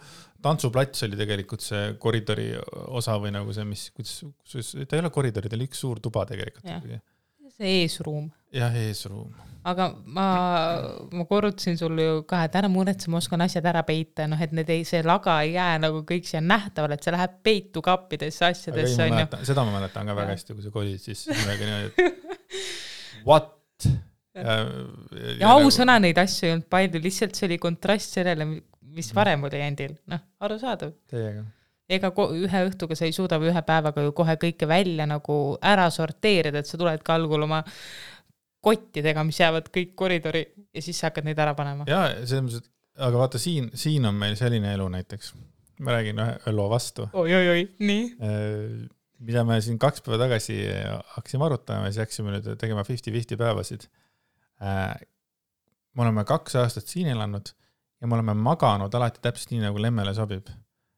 tantsuplats oli tegelikult see koridori osa või nagu see, mis ta ei ole koridori, ta oli üks suur tuba tegelikult. see eesruum. jah, eesruum. Aga ma korrutasin sulle ju ka, et ära muretse, ma oskan asjad ära peita, noh, et see laga ei jää nagu kõik siia nähtavale, et see läheb peitu kappidesse asjadesse. Seda ma mäletan ka väga hästi, kui sa kolid, siis midagi niimoodi, et what? Ja ausõna neid asju ei olnud palju, lihtsalt see oli kontrast sellele, mis varem oli endil. Noh, arusaadav. Teiega. Ega ühe õhtuga sa ei suuda või ühe päevaga ju kohe kõike välja nagu ära sorteerida, et sa tuled ka algul oma kottidega, mis jäävad kõik koridori ja siis sa hakkad neid ära panema. Jaa, aga vaata, siin on meil selline elu näiteks. Ma räägin ühe loo vastu. Oi, nii. Mida me siin 2 päeva tagasi hakkasime arutama ja siis hakkasime nüüd tegema 50-50 päevasid. Me oleme 2 aastat siin elanud ja me oleme maganud alati täpselt nii, nagu Lemmele sobib.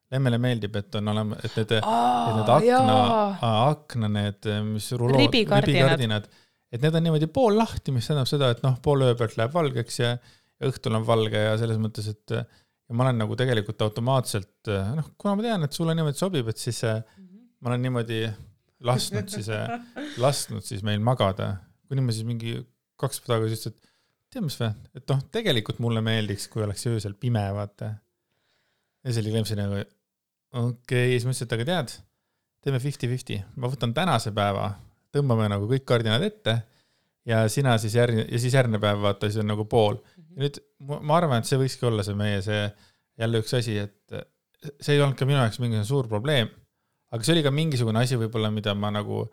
Lemmele meeldib, et on olema, et need akna, need mis ribikardinad, et need on niimoodi pool lahti, mis tähendab seda, et pool öö pealt läheb valgeks ja õhtul on valge ja selles mõttes, et ja ma olen nagu tegelikult automaatselt, kuna ma tean, et sulle niimoodi sobib, et siis ma olen niimoodi lasknud siis meil magada. Kuni ma siis mingi 2 päeva tagasi ütlesin, et tead mis või, et tegelikult mulle meeldiks, kui oleks öösel pime, vaata. Ja see oli Lemsi nagu, okei, siis ma ütlesin, et aga tead, teeme 50-50. Ma võtan tänase päeva, tõmbame nagu kõik kardinad ette ja sina siis järgmine päev vaata, siis on nagu pool. Ja nüüd ma arvan, et see võikski olla see meie jälle üks asi, et see ei olnud ka minu jaoks mingisugune suur probleem, aga see oli ka mingisugune asi võib-olla, mida ma nagu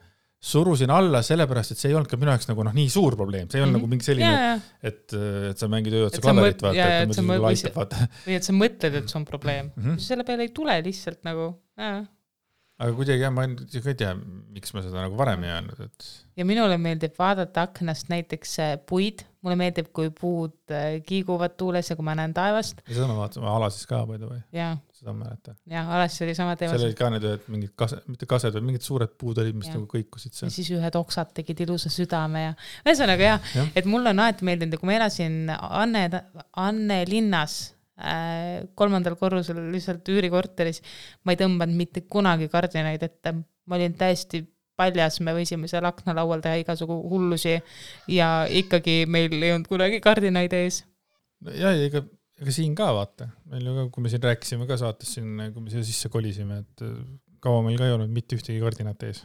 surusin alla sellepärast, et see ei olnud ka minu jaoks nagu nii suur probleem. See ei olnud nagu mingi selline, et sa mängid ööotsa klaverit, vaata. Või et sa mõtled, et see on probleem. Selle peale ei tule lihtsalt nagu, Aga kuidagi ma ei tea, miks ma seda nagu varem ei öelnud. Et... Ja minule meeldib vaadata aknast näiteks puid. Mulle meeldib, kui puud kiiguvad tuules ja kui ma näen taevast. Ja seda ma vaatasin, Alasis ka palju või? Jaa. Seda ma mäletan. Jaa, Alasis oli sama teema. Seal olid ka need mingid mitte kased, vaid mingid suured puud olid, mis nagu kõikusid seal. Ja siis ühed oksad tegid ilusa südame ja ühesõnaga ja. Et mulle on alati meeldinud, kui ma elasin Anne linnas 3. korrusel lihtsalt üürikorteris, ma ei tõmbanud mitte kunagi kardinaid ette. Ma olin täiesti paljas, me võisime seal aknalaual teha igasugu hullusi ja ikkagi meil ei olnud kunagi kardinaid ees. Ja ega siin ka vaata. Meil ju, kui me siin rääkisime ka saates siin, kui me siia sisse kolisime, et kaua meil ka ei olnud mitte ühtegi kardinat ees.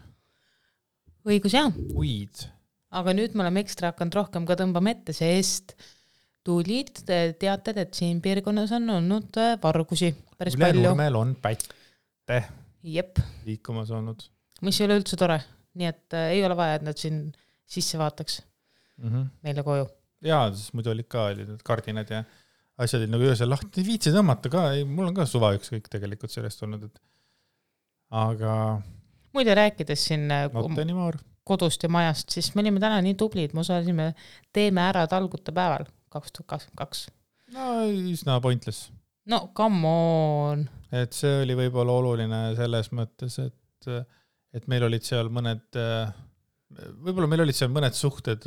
Õigus jah. Uid. Aga nüüd me oleme ekstra hakanud rohkem ka tõmbama ette, sest tulid teated, et siin piirkonnas on olnud vargusi päris palju. Ülenurmel on pätte liikumas olnud. Mis ei ole üldse tore. Nii et ei ole vaja, et nad siin sisse vaataks meile koju. Jaa, siis muidu olid ka need kardinad ja asjad olid nagu öösel lahti. Viitsi tõmmata ka, mul on ka suva üks kõik tegelikult sellest olnud. Et... Aga... Muide rääkides siin kodust ja majast, siis me olime täna nii tublid, me osalisime Teeme ära talguta päeval 2022. No, üsna pointless. No, come on. Et see oli võib-olla oluline selles mõttes, et meil olid seal mõned, võib-olla meil olid seal mõned suhted,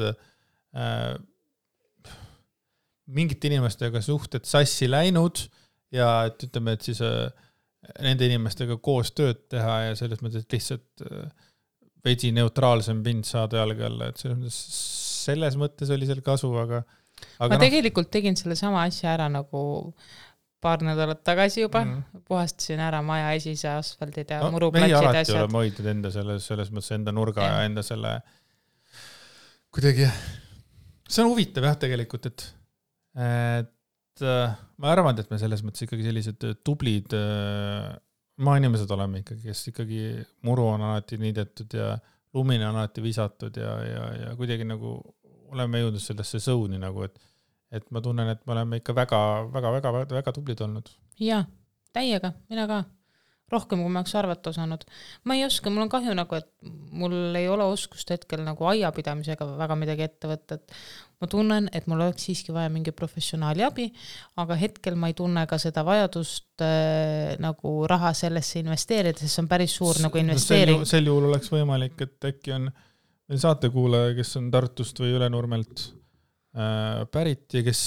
mingite inimestega suhted sassi läinud ja et ütleme, et siis nende inimestega koos tööd teha ja selles mõttes, et lihtsalt veidi neutraalsem pind saada jalge alla, et selles mõttes oli seal kasu, aga ma tegelikult tegin selle sama asja ära nagu paar nädalat tagasi juba, puhastasin ära maja esise asfaldid ja muruplatsid asjad. Meie alati oleme hoidnud enda selles mõttes enda nurga ja enda selle kuidagi, see on huvitav jah tegelikult, et ma arvan, et me selles mõttes ikkagi sellised tublid maainimesed oleme ikkagi, kes ikkagi muru on alati niidetud ja lumine on alati visatud ja kuidagi nagu oleme jõudnud sellesse sõuni nagu, et ma tunnen, et me oleme ikka väga tublid olnud. Jaa, täiega, mina ka. Rohkem, kui ma oleks arvata osanud. Ma ei oska, mul on kahju nagu, et mul ei ole oskust hetkel nagu aiapidamisega väga midagi ette võtta. Ma tunnen, et mul oleks siiski vaja mingi professionaali abi, aga hetkel ma ei tunne ka seda vajadust nagu raha sellesse investeerida, sest see on päris suur nagu investeering. Sel juhul oleks võimalik, et äkki on meil saatekuulaja, kes on Tartust või Ülenurmelt pärit ja kes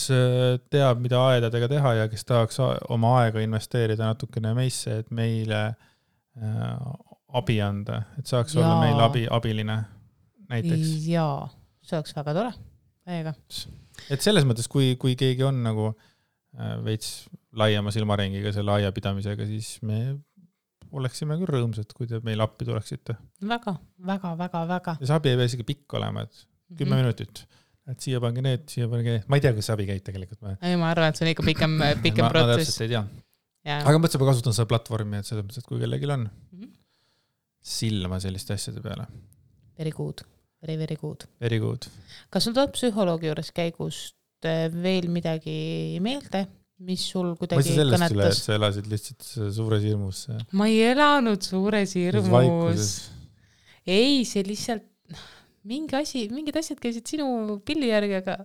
teab, mida aedadega teha ja kes tahaks oma aega investeerida natukene meisse, et meile abi anda, et saaks olla meil abiline näiteks. Jaa, see oleks väga tore. Täiega. Et selles mõttes, kui keegi on nagu veits laiema silmaringiga selle aiapidamisega, siis me oleksime küll rõõmsad, kui te meil appi tuleksite. Väga. Ja see abi ei pea isegi pikk olema, et 10 minutit. Et siia pange need. Ma ei tea, kas abi käib tegelikult. Ei, ma arvan, et see on ikka pikem protsess. Ma täpselt ei tea. Aga mõtlesin, ma kasutan seda platvormi, et selles mõttes, et kui kellegil on silma selliste asjade peale. Very good. Very good. Very good. Kas sul tuleb psühholoogi juures käigust veel midagi meelde, mis sul kuidagi kõnetas? Ma sellest üle, et sa elasid lihtsalt suures hirmus. Ma ei elanud suures hirmus. Ei, see lihtsalt mingid asjad käisid sinu pilli järgi, aga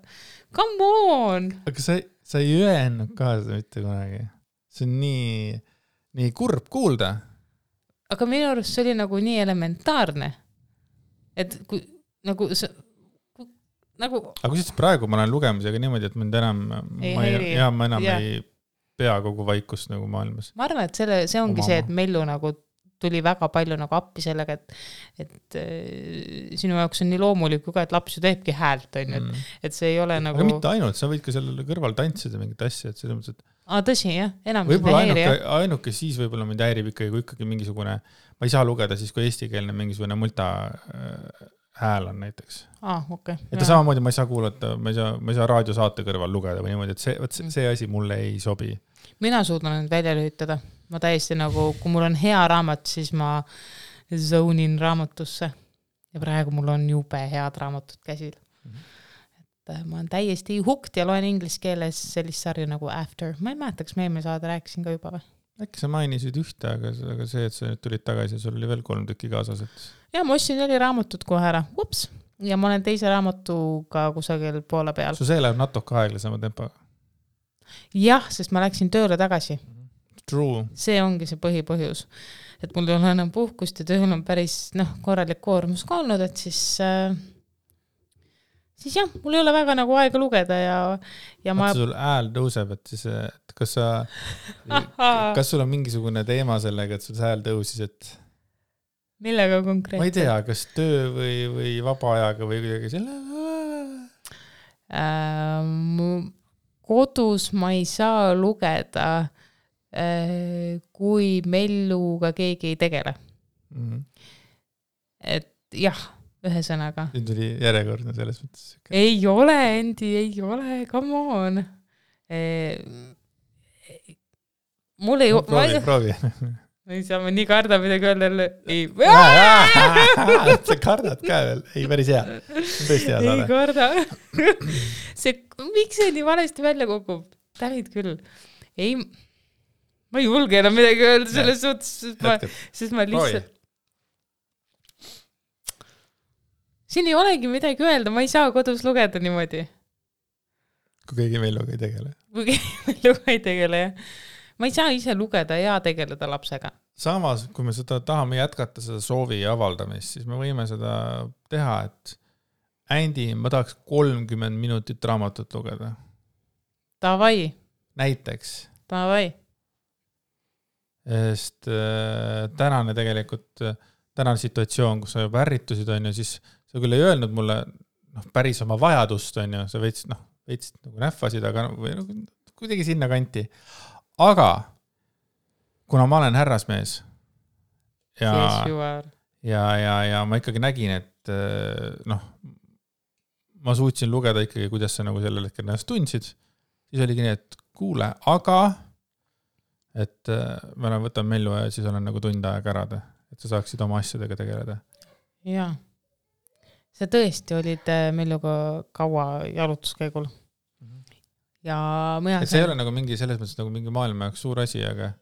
come on! Aga sa ei öelnud ka seda mitte kunagi. See on nii kurb kuulda. Aga minu arust see oli nagu nii elementaarne. Et kui nagu aga kui siis praegu ma olen lugemisega niimoodi, et mind enam ma enam ei pea kogu vaikust nagu maailmas. Ma arvan, et see ongi see, et Mellu nagu tuli väga palju nagu appi sellega, et sinu jaoks on nii loomulik ka, et laps ju teebki häält, on ju, et see ei ole nagu... Aga mitte ainult, sa võid ka sellele kõrval tantsida mingit asja, et selles mõttes, et... tõsi, jah, enam võib-olla ainuke siis võib-olla mind häirib ikkagi mingisugune... Ma ei saa lugeda siis, kui eestikeelne mingisugune multa hääl on näiteks. Okay. Et samamoodi ma ei saa kuulata, ma ei saa raadiosaate kõrval lugeda või niimoodi, et see asi mulle ei sobi. Mina suudan nüüd välja lühitada. Ma täiesti nagu, kui mul on hea raamat, siis ma zone'in raamatusse. Ja praegu mul on jube head raamatud käsil. Et ma olen täiesti hooked ja loen inglise keeles sellist sarja nagu After. Ma ei mäletaks, me saada rääkisin ka juba või? Äkki sa mainisid ühte, aga see, et sa nüüd tulid tagasi ja sul oli veel 3 tükki kaasas. Et... Ja ma ostsin 4 raamatut kohe ära. Ups! Ja ma olen teise raamatuga kusagil poole peal. See läheb natuke aeglasema tempoga? Jah, sest ma läksin tööle tagasi. True. See ongi see põhipõhjus. Et mul ei ole enam puhkust ja tööl on päris korralik koormus ka olnud, et siis jah, mul ei ole väga nagu aega lugeda ja ma... sul hääl tõuseb, et siis, et kas sul on mingisugune teema sellega, et sul hääl tõusis, et... Millega konkreetselt? Ma ei tea, kas töö või vaba ajaga või kuidagi selle... Kodus ma ei saa lugeda, kui Melluga keegi ei tegele. Et jah, ühesõnaga. Nüüd tuli järjekordne selles mõttes. Ei ole, Endi, ei ole, come on. Mul ei... Proovi. Ma ei saa, ma nii karda midagi öelda. Ei. Sa kardad ka veel. Ei, päris hea. Tõesti hea saada. Ei karda. Miks see nii valesti välja kukub? Tänid küll. Ei, ma ei julge enam midagi öelda selles suhtes, sest ma lihtsalt... Siin ei olegi midagi öelda, ma ei saa kodus lugeda niimoodi. Kui keegi Melluga ei tegele. Kui keegi Melluga ei tegele, jah. Ma ei saa ise lugeda ja tegeleda lapsega. Samas, kui me seda tahame jätkata, seda soovi avaldamist, siis me võime seda teha, et Andi, ma tahaks 30 minutit raamatut lugeda. Tavai. Näiteks. Tavai. Sest tänane situatsioon, kus sa juba ärritusid, on ju, siis sa küll ei öelnud mulle päris oma vajadust, on ju, sa veits nagu nähvasid, aga kuidagi sinna kanti. Aga kuna ma olen härrasmees ja ma ikkagi nägin, et ma suutsin lugeda ikkagi, kuidas sa nagu sellel hetkel ennast tundsid, siis oligi nii, et kuule, aga et ma võtan Mellu ja siis olen nagu tund aega ära, et sa saaksid oma asjadega tegeleda. Jaa. Sa tõesti olid Melluga kaua jalutuskäigul. Ja see ei ole nagu mingi selles mõttes nagu mingi maailma jaoks suur asi, aga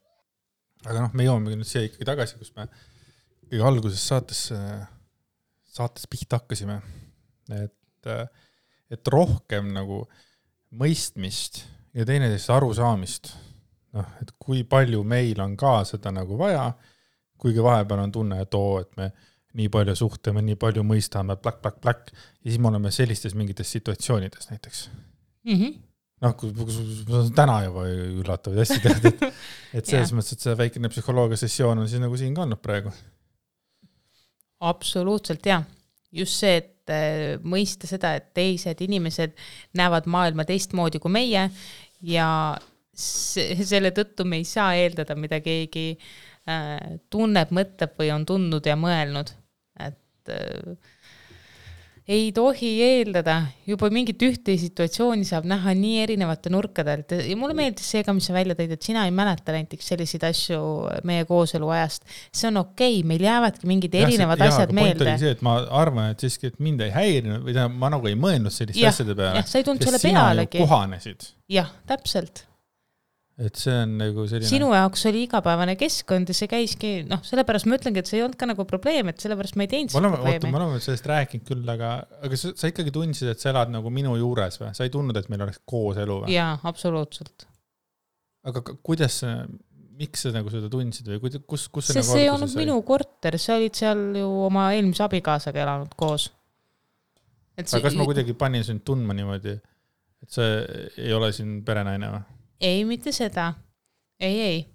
me jõuame nüüd siia ikkagi tagasi, kus me kõige alguses saates pihta hakkasime, et rohkem nagu mõistmist ja teineteist arusaamist, et kui palju meil on ka seda nagu vaja, kuigi vahepeal on tunne, et me nii palju suhtame, nii palju mõistame, plak, ja siis me oleme sellistes mingites situatsioonides näiteks. Kui täna juba üllatavad hästi tead, et selles mõttes, et see väikene psühholoogia sessioon on siis nagu siin ka olnud praegu. Absoluutselt, jah. just see, et mõista seda, et teised inimesed näevad maailma teistmoodi kui meie ja selle tõttu me ei saa eeldada, mida keegi tunneb, mõtleb või on tundnud ja mõelnud. Et ei tohi eeldada, juba mingit ühte situatsiooni saab näha nii erinevate nurkadelt ja mulle meeldis see ka, mis sa välja tõid, et sina ei mäleta näiteks selliseid asju meie kooselu ajast. See on okei, meil jäävadki mingid erinevad asjad meelde. Point oli see, et ma arvan, et siiski, et mind ei häirinud või ma nagu ei mõelnud sellist asjade peale. Sa ei tulnud selle pealegi. Sina ju kohanesid. Jah, täpselt. Et see on nagu selline... Sinu jaoks oli igapäevane keskkond ja see käiski, sellepärast ma ütlengi, et see ei olnud ka nagu probleem, et sellepärast ma ei teinud seda probleemi. Ma olen sellest rääkinud küll, aga sa ikkagi tundsid, et sa elad nagu minu juures või? Sa ei tundnud, et meil oleks koos elu või? Jaa, absoluutselt. Aga kuidas, miks sa nagu seda tundsid või kus see nagu see ei olnud minu korter, sa olid seal ju oma eelmise abikaasaga elanud koos. Aga kas ma kuidagi panin sind tundma niimoodi, et sa ei ole siin perenaine või? Ei, mitte seda. Ei.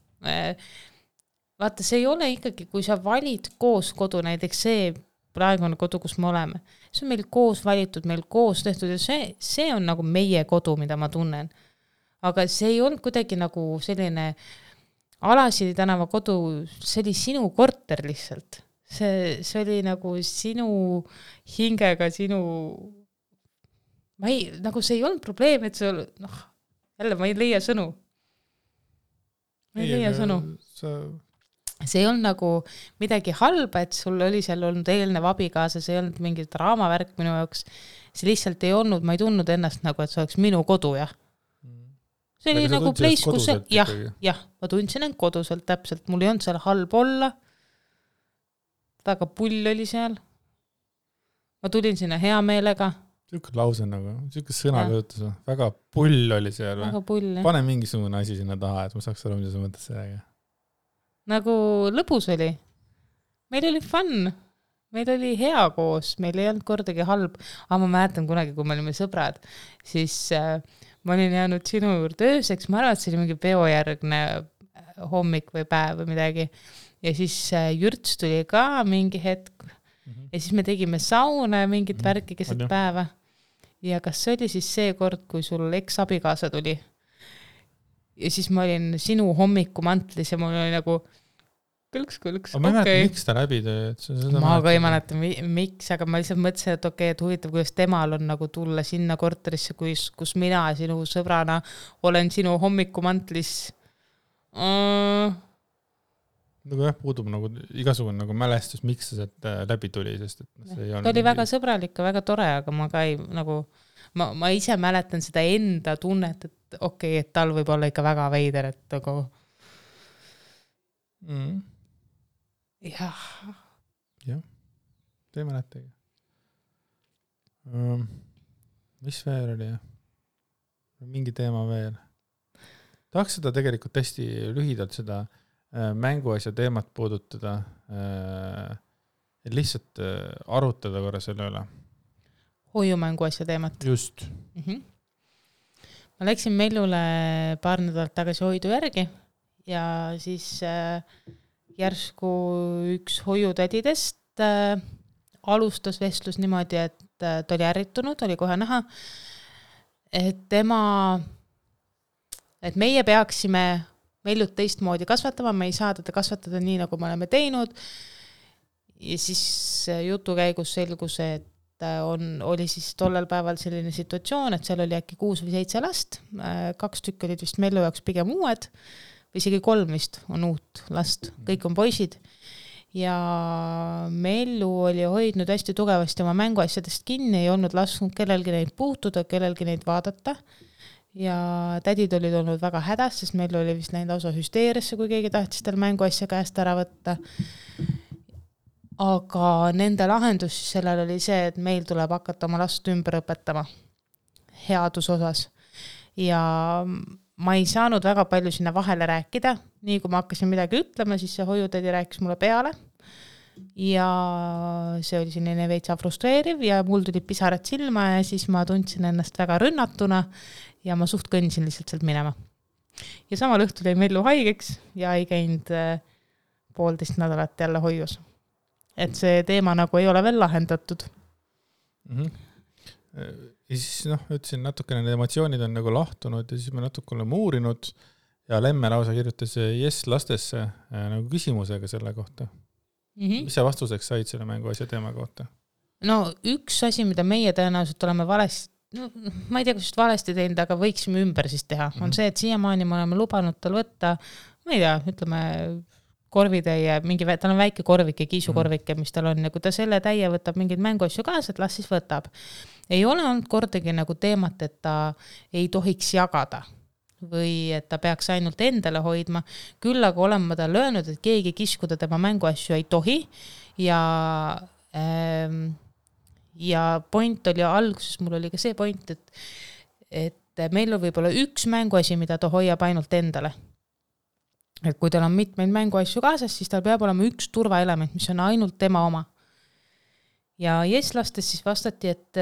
Vaata, see ei ole ikkagi, kui sa valid koos kodu, näiteks see praegune kodu, kus me oleme. See on meil koos valitud, meil koos tehtud ja see on nagu meie kodu, mida ma tunnen. Aga see ei olnud kuidagi nagu selline Alasili tänava kodu, see oli sinu korter lihtsalt. See oli nagu sinu hingega, nagu see ei olnud probleem, et sul, jälle, ma ei leia sõnu. See ei olnud nagu midagi halba, et sul oli seal olnud eelnev abikaasa, see ei olnud mingi draamavärk minu jaoks. See lihtsalt ei olnud, ma ei tundnud ennast nagu, et see oleks minu kodu, jah. See oli nagu place, kus jah, ma tundsin end koduselt täpselt, mul ei olnud seal halb olla. Väga pull oli seal. Ma tulin sinna hea meelega. Siuke lause nagu, siuke sõnakõutus, väga pull oli seal. Väga pull, jah. Pane mingisugune asi sinna taha, et ma saaks aru, mida sa mõttes sellega. Nagu lõbus oli. Meil oli fun. Meil oli hea koos, meil ei olnud kordagi halb. Aga ma mäletan kunagi, kui me olime sõbrad, siis ma olin jäänud sinu juurde ööseks. Ma arvan, et see oli mingi peojärgne hommik või päev või midagi. Ja siis Jürts tuli ka mingi hetk. Ja siis me tegime sauna ja mingit värki keset päeva. Ja kas see oli siis see kord, kui sul eks-abikaasa tuli? Ja siis ma olin sinu hommikumantlis ja mul oli nagu kõlks. Ma ei mäleta, miks ta läbi tõi? Ma ka ei mäleta, miks, aga ma lihtsalt mõtlesin, et okei, et huvitav, kuidas temal on nagu tulla sinna korterisse, kus mina sinu sõbrana olen sinu hommikumantlis. Nagu jah, puudub nagu igasugune nagu mälestus, miks see läbi tuli, sest et see ei olnud... Ta oli väga sõbralik ja väga tore, aga ma ka ei nagu... Ma ise mäletan seda enda tunnet, et okei, et tal võib olla ikka väga veider, et nagu... Jah. Jah, te ei mäletagi. Mis veel oli? Mingi teema veel. Tahaks seda tegelikult hästi lühidalt seda mänguasja teemat puudutada, et lihtsalt arutada korra selle üle. Hoiumänguasja teemat. Just. Ma läksin Mellule paar nädalat tagasi hoidu järgi ja siis järsku üks hoiutädidest alustas vestlus niimoodi, et ta oli ärritunud, oli kohe näha, et meie peaksime Mellut teistmoodi kasvatama, me ei saa teda kasvatada nii, nagu me oleme teinud. Ja siis jutu käigus selgus, et oli siis tollel päeval selline situatsioon, et seal oli äkki 6 või 7 last, 2 tükki olid vist Mellu jaoks pigem uued, või isegi 3 vist on uut last, kõik on poisid. Ja Mellu oli hoidnud hästi tugevasti oma mänguasjadest kinni, ei olnud lasknud kellelgi neid puutuda, kellelgi neid vaadata. Ja tädid olid olnud väga hädas, sest meil oli vist läinud lausa hüsteeriasse, kui keegi tahtis tal mänguasja käest ära võtta. Aga nende lahendus sellel oli see, et meil tuleb hakata oma last ümber õpetama headus osas. Ja ma ei saanud väga palju sinna vahele rääkida. Nii kui ma hakkasin midagi ütlema, siis see hoiutädi rääkis mulle peale. Ja see oli selline veitsa frustreeriv ja mul tuli pisarad silma ja siis ma tundsin ennast väga rünnatuna ja ma suht kõndisin lihtsalt sealt minema. Ja samal õhtul jäi Mellu haigeks ja ei käinud 1,5 nädalat jälle hoius. Et see teema nagu ei ole veel lahendatud. Ja siis ütlesin natukene, need emotsioonid on nagu lahtunud ja siis me natuke oleme uurinud ja Lemme lausa kirjutas Yes lastesse nagu küsimusega selle kohta. Mis sa vastuseks said selle mänguasja teema kohta? No üks asi, mida meie tõenäoliselt oleme valesti, ma ei tea, kas just valesti teinud, aga võiksime ümber siis teha, on see, et siiamaani me oleme lubanud tal võtta, ma ei tea, ütleme korvitäie, tal on väike korvike, kiisukorvike, mis tal on ja kui ta selle täie võtab mingeid mänguasju kaasa, et las siis võtab. Ei ole olnud kordagi nagu teemat, et ta ei tohiks jagada või et ta peaks ainult endale hoidma. Küll aga olen ma talle öelnud, et keegi kiskuda tema mänguasju ei tohi ja point oli alguses, mul oli ka see point, et meil on võib-olla üks mänguasi, mida ta hoiab ainult endale. Et kui tal on mitmeid mänguasju kaasas, siis tal peab olema üks turvaelement, mis on ainult tema oma. Ja Yes-lastes siis vastati, et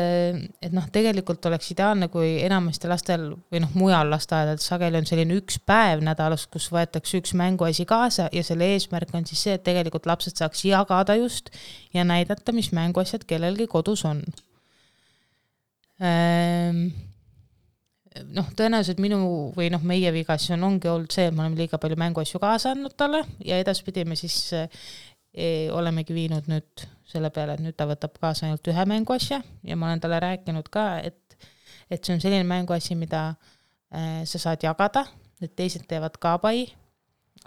tegelikult oleks ideaalne, kui enamasti lastel või mujal lasteaedades sageli on selline üks päev nädalas, kus võetakse üks mänguasi kaasa ja selle eesmärk on siis see, et tegelikult lapsed saaks jagada just ja näidata, mis mänguasjad kellelgi kodus on. Tõenäoliselt minu või meie vigas ongi olnud see, et me oleme liiga palju mänguasju kaasa andnud talle ja edaspidi me siis olemegi viinud nüüd selle peale, et nüüd ta võtab kaasa ainult ühe mänguasja ja ma olen talle rääkinud ka, et see on selline mänguasi, mida sa saad jagada, et teised teevad ka pai,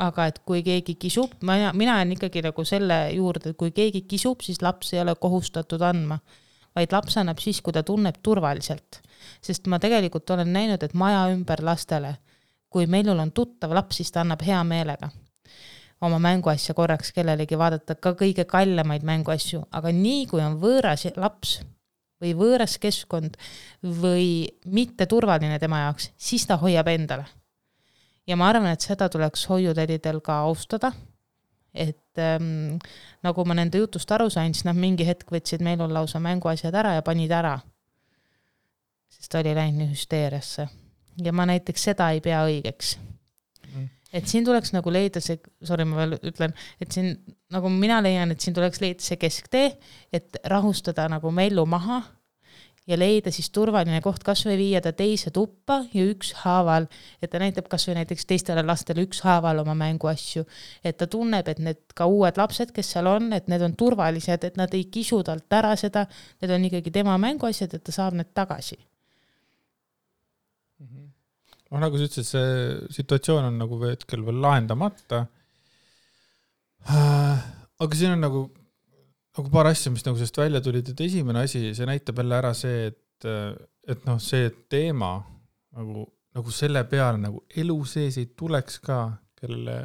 aga et kui keegi kisub, mina olen ikkagi nagu selle juurde, et kui keegi kisub, siis laps ei ole kohustatud andma, vaid laps annab siis, kui ta tunneb turvaliselt. Sest ma tegelikult olen näinud, et maja ümber lastele, kui meil on tuttav laps, siis ta annab hea meelega oma mänguasja korraks kellelegi vaadata ka kõige kallemaid mänguasju, aga nii kui on võõras laps või võõras keskkond või mitte turvaline tema jaoks, siis ta hoiab endale. Ja ma arvan, et seda tuleks hoiutädidel ka austada, et nagu ma nende jutust aru sain, siis nad mingi hetk võtsid meil on lausa mänguasjad ära ja panid ära, sest ta oli läinud hüsteeriasse. Ja ma näiteks seda ei pea õigeks. Et siin tuleks nagu leida see, ma veel ütlen, et siin nagu mina leian, et siin tuleks leida see kesktee, et rahustada nagu Mellu maha ja leida siis turvaline koht, kas või viia ta teise tuppa ja üks haaval, et ta näitab kas või näiteks teistele lastele üks haaval oma mänguasju, et ta tunneb, et need ka uued lapsed, kes seal on, et need on turvalised, et nad ei kisu talt ära seda, need on ikkagi tema mänguasjad, et ta saab need tagasi. Nagu sa ütlesid, see situatsioon on nagu hetkel veel lahendamata. Aga siin on nagu paar asja, mis nagu sellest välja tulid, et esimene asi, see näitab jälle ära see, et see teema nagu selle peale nagu elu sees ei tuleks ka, kellele,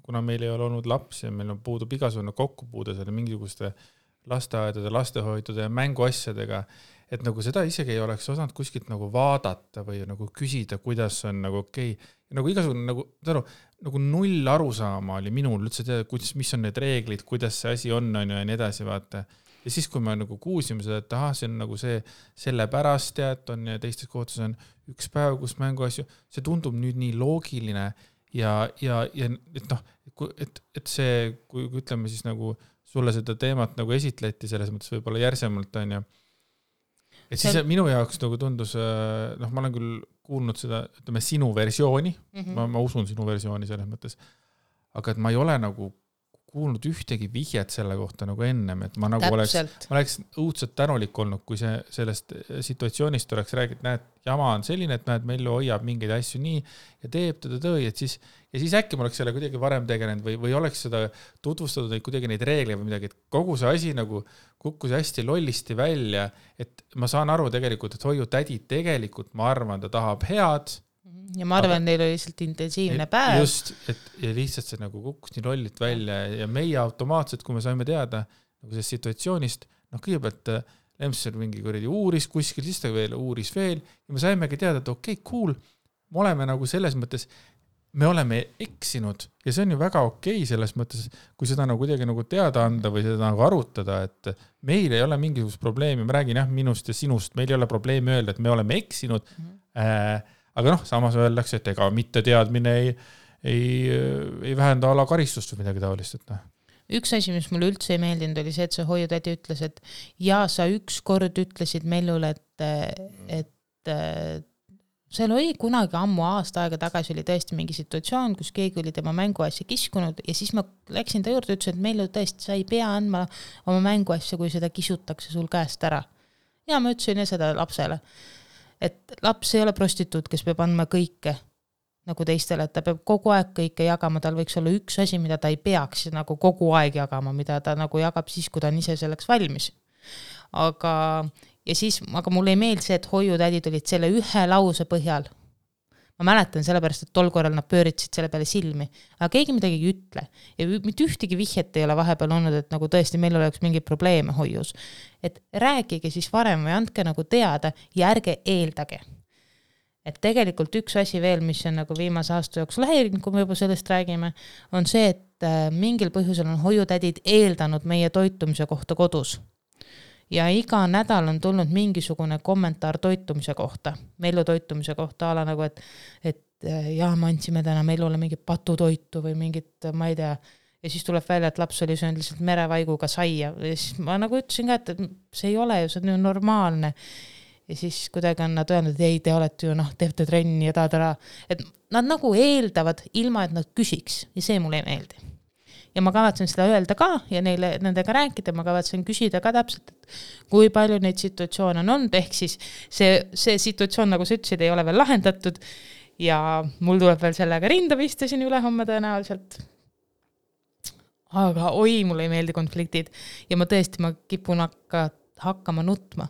kuna meil ei ole olnud lapsi ja meil on puudub igasugune kokkupuude selle mingisuguste lasteaedade, lastehoidude ja mänguasjadega, et nagu seda isegi ei oleks osanud kuskilt nagu vaadata või nagu küsida, kuidas on nagu okei. Ja nagu igasugune nagu null arusaama oli minul üldse teada, mis on need reeglid, kuidas see asi on ja nii edasi, vaata. Ja siis, kui me nagu kuulsime seda, et see on nagu see sellepärast tead on ja teistes kohtus on üks päev, kus mänguasju, see tundub nüüd nii loogiline ja et see, kui ütleme siis nagu sulle seda teemat nagu esitleti selles mõttes võib-olla järsemalt on ja et siis minu jaoks nagu tundus, ma olen küll kuulnud seda, ütleme, sinu versiooni, ma usun sinu versiooni selles mõttes, aga et ma ei ole nagu kuulnud ühtegi vihjet selle kohta nagu ennem, et ma nagu oleks õudselt tänulik olnud, kui sellest situatsioonist oleks räägitud, näed, jama on selline, et näed, Mellu hoiab mingeid asju nii ja teeb ja siis äkki ma oleks selle kuidagi varem tegelenud või oleks seda tutvustatud kuidagi neid reegleid või midagi, et kogu see asi nagu kukkus hästi lollisti välja, et ma saan aru tegelikult, et hoiutädi tegelikult, ma arvan, ta tahab head. Ja ma arvan, neil oli lihtsalt intensiivne päev. Just, ja lihtsalt see nagu kukkus nii lollit välja ja meie automaatselt, kui me saime teada nagu sellest situatsioonist, kõigepealt Lemser mingi kuradi uuris kuskil, siis ta veel uuris veel ja me saimegi teada, et okei, cool, me oleme nagu selles mõttes, me oleme eksinud ja see on ju väga okei selles mõttes, kui seda nagu kuidagi nagu teada anda või seda nagu arutada, et meil ei ole mingisugust probleemi, ma räägin minust ja sinust, meil ei ole probleemi öelda, et me oleme eksinud, aga samas öeldakse, et ega mitte teadmine ei vähenda ala karistust või midagi taolist, et üks asi, mis mulle üldse ei meeldinud, oli see, et see hoiutädi ütles, et ja sa ükskord ütlesid Mellule, et seal oli kunagi ammu aasta aega tagasi oli tõesti mingi situatsioon, kus keegi oli tema mänguasja kiskunud ja siis ma läksin ta juurde ja ütlesin, et Mellu tõesti, sa ei pea andma oma mänguasja, kui seda kisutakse sul käest ära. Ja ma ütlesin seda lapsele, et laps ei ole prostituut, kes peab andma kõike nagu teistele, et ta peab kogu aeg kõike jagama, tal võiks olla üks asi, mida ta ei peaks nagu kogu aeg jagama, mida ta nagu jagab siis, kui ta on ise selleks valmis. Aga mulle ei meeldi see, et hoiutädid olid selle ühe lause põhjal. Ma mäletan sellepärast, et tol korral nad pööritsid selle peale silmi, aga keegi midagi ei ütle ja mitte ühtegi vihjet ei ole vahepeal olnud, et nagu tõesti meil oleks mingi probleeme hoius. Et rääkige siis varem või andke nagu teada ja ärge eeldage. Et tegelikult üks asi veel, mis on nagu viimase aasta jooksul häirinud, kui me juba sellest räägime, on see, et mingil põhjusel on hoiutädid eeldanud meie toitumise kohta kodus. Ja iga nädal on tulnud mingisugune kommentaar toitumise kohta, Mellu toitumise kohta, ala nagu, et jah, me andsime täna Mellule mingit patutoitu või mingit, ma ei tea, ja siis tuleb välja, et laps oli söönud lihtsalt merevaiguga saia ja siis ma nagu ütlesin ka, et see ei ole ju, see on ju normaalne. Ja siis kuidagi on nad öelnud, et ei, te olete ju, teete trenni ja taadara. Et nad nagu eeldavad ilma, et nad küsiks ja see mulle ei meeldi. Ja ma kavatsen seda öelda ka ja nendega rääkida, ma kavatsen küsida ka täpselt, et kui palju neid situatsioone on olnud, ehk siis see situatsioon, nagu sa ütlesid, ei ole veel lahendatud ja mul tuleb veel sellega rinda pista siin üle homme tõenäoliselt. Aga mulle ei meeldi konfliktid ja ma kipun hakkama nutma.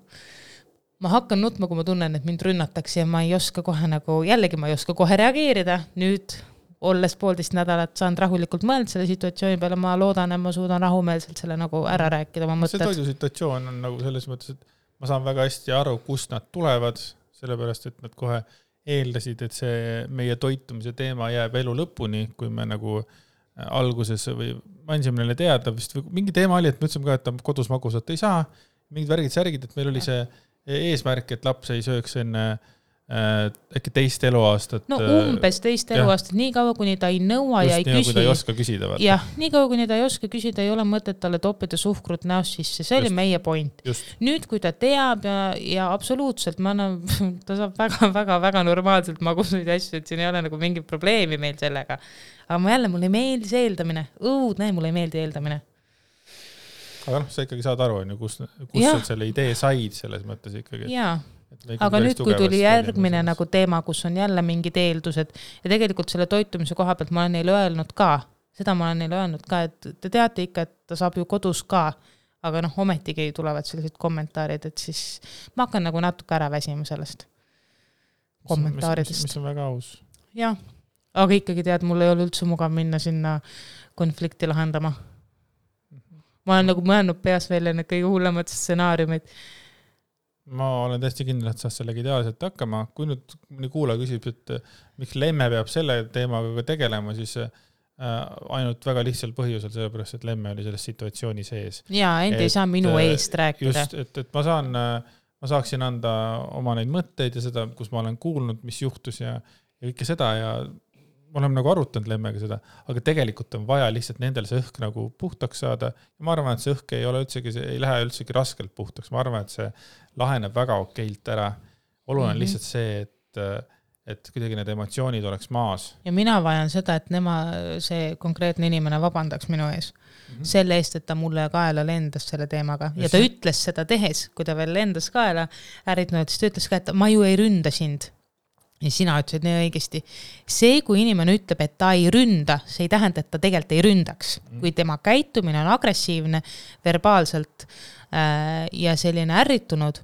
Ma hakkan nutma, kui ma tunnen, et mind rünnatakse ja ma ei oska kohe nagu, jällegi ma ei oska kohe reageerida. Nüüd olles 1,5 nädalat saan rahulikult mõelda selle situatsiooni peale, ma loodan, et ma suudan rahumeelselt selle nagu ära rääkida oma mõtted. See toidusituatsioon on nagu selles mõttes, et ma saan väga hästi aru, kust nad tulevad, sellepärast, et nad kohe eeldasid, et see meie toitumise teema jääb elu lõpuni, kui me nagu alguses või andsime neile teada, vist mingi teema oli, et me ütlesime ka, et kodus magusat ei saa, mingid värgid, et meil oli see eesmärk, et laps ei sööks enne äkki teist eluaastat. No umbes teist eluaastat, nii kaua, kuni ta ei nõua ja ei küsi. Just nii, kui ta ei oska küsida. Jah, nii kaua, kuni ta ei oska küsida, ei ole mõtet talle toppida suhkrut näost sisse. See oli meie point. Nüüd, kui ta teab ja absoluutselt, ta saab väga normaalselt magusaid asju, et siin ei ole nagu mingit probleemi meil sellega. Aga mulle ei meeldi see eeldamine. Mulle ei meeldi eeldamine. Aga sa ikkagi saad aru, kus sa selle idee said selles mõttes ikkagi. Jaa. Aga nüüd, kui tuli järgmine nagu teema, kus on jälle mingid eeldused ja tegelikult selle toitumise koha pealt ma olen neile öelnud ka, et te teate ikka, et ta saab ju kodus ka, aga ometigi tulevad sellised kommentaarid, et siis ma hakkan nagu natuke ära väsima sellest kommentaaridest. Mis on väga aus. Jah, aga ikkagi tead, mul ei ole üldse mugav minna sinna konflikti lahendama. Ma olen nagu mõelnud peas välja need kõige hullemad stsenaariumid. Ma olen täiesti kindel, et saad sellega ideaalselt hakkama. Kui nüüd mõni kuulaja küsib, et miks Lemme peab selle teemaga tegelema, siis ainult väga lihtsal põhjusel, sellepärast, et Lemme oli selles situatsiooni sees. Jaa, ei saa minu eest rääkida. Just, et ma saaksin anda oma neid mõtteid ja seda, kus ma olen kuulnud, mis juhtus ja kõike seda ja me oleme nagu arutanud Lemmega seda, aga tegelikult on vaja lihtsalt nendel see õhk nagu puhtaks saada ja ma arvan, et see õhk ei lähe üldsegi raskelt puhtaks. Ma arvan, et see laheneb väga okeilt ära. Oluline on lihtsalt see, et kuidagi need emotsioonid oleks maas. Ja mina vajan seda, et see konkreetne inimene vabandaks minu ees. Selle eest, et ta mulle kaela lendas selle teemaga. Ja ta ütles seda tehes, kui ta veel lendas kaela, siis ta ütles ka, et ma ju ei ründa sind. Ja sina ütlesid nii õigesti. See, kui inimene ütleb, et ta ei ründa, see ei tähenda, et ta tegelikult ei ründaks. Kui tema käitumine on agressiivne, verbaalselt ja selline ärritunud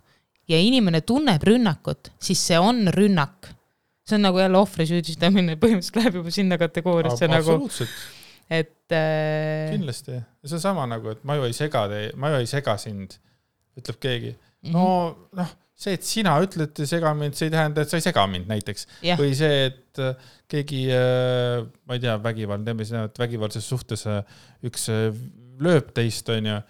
ja inimene tunneb rünnakut, siis see on rünnak. See on nagu jälle ohvri süüdistamine, põhimõtteliselt läheb juba sinna kategooriasse. Absoluutselt. Et, kindlasti. Ja see on sama nagu, et ma ju ei sega sind, ütleb keegi. See, et sina ütled sega mind, see ei tähenda, et sa ei sega mind näiteks. Ja. Või see, et keegi, ma ei tea, vägivaldses suhtes üks lööb teist on ja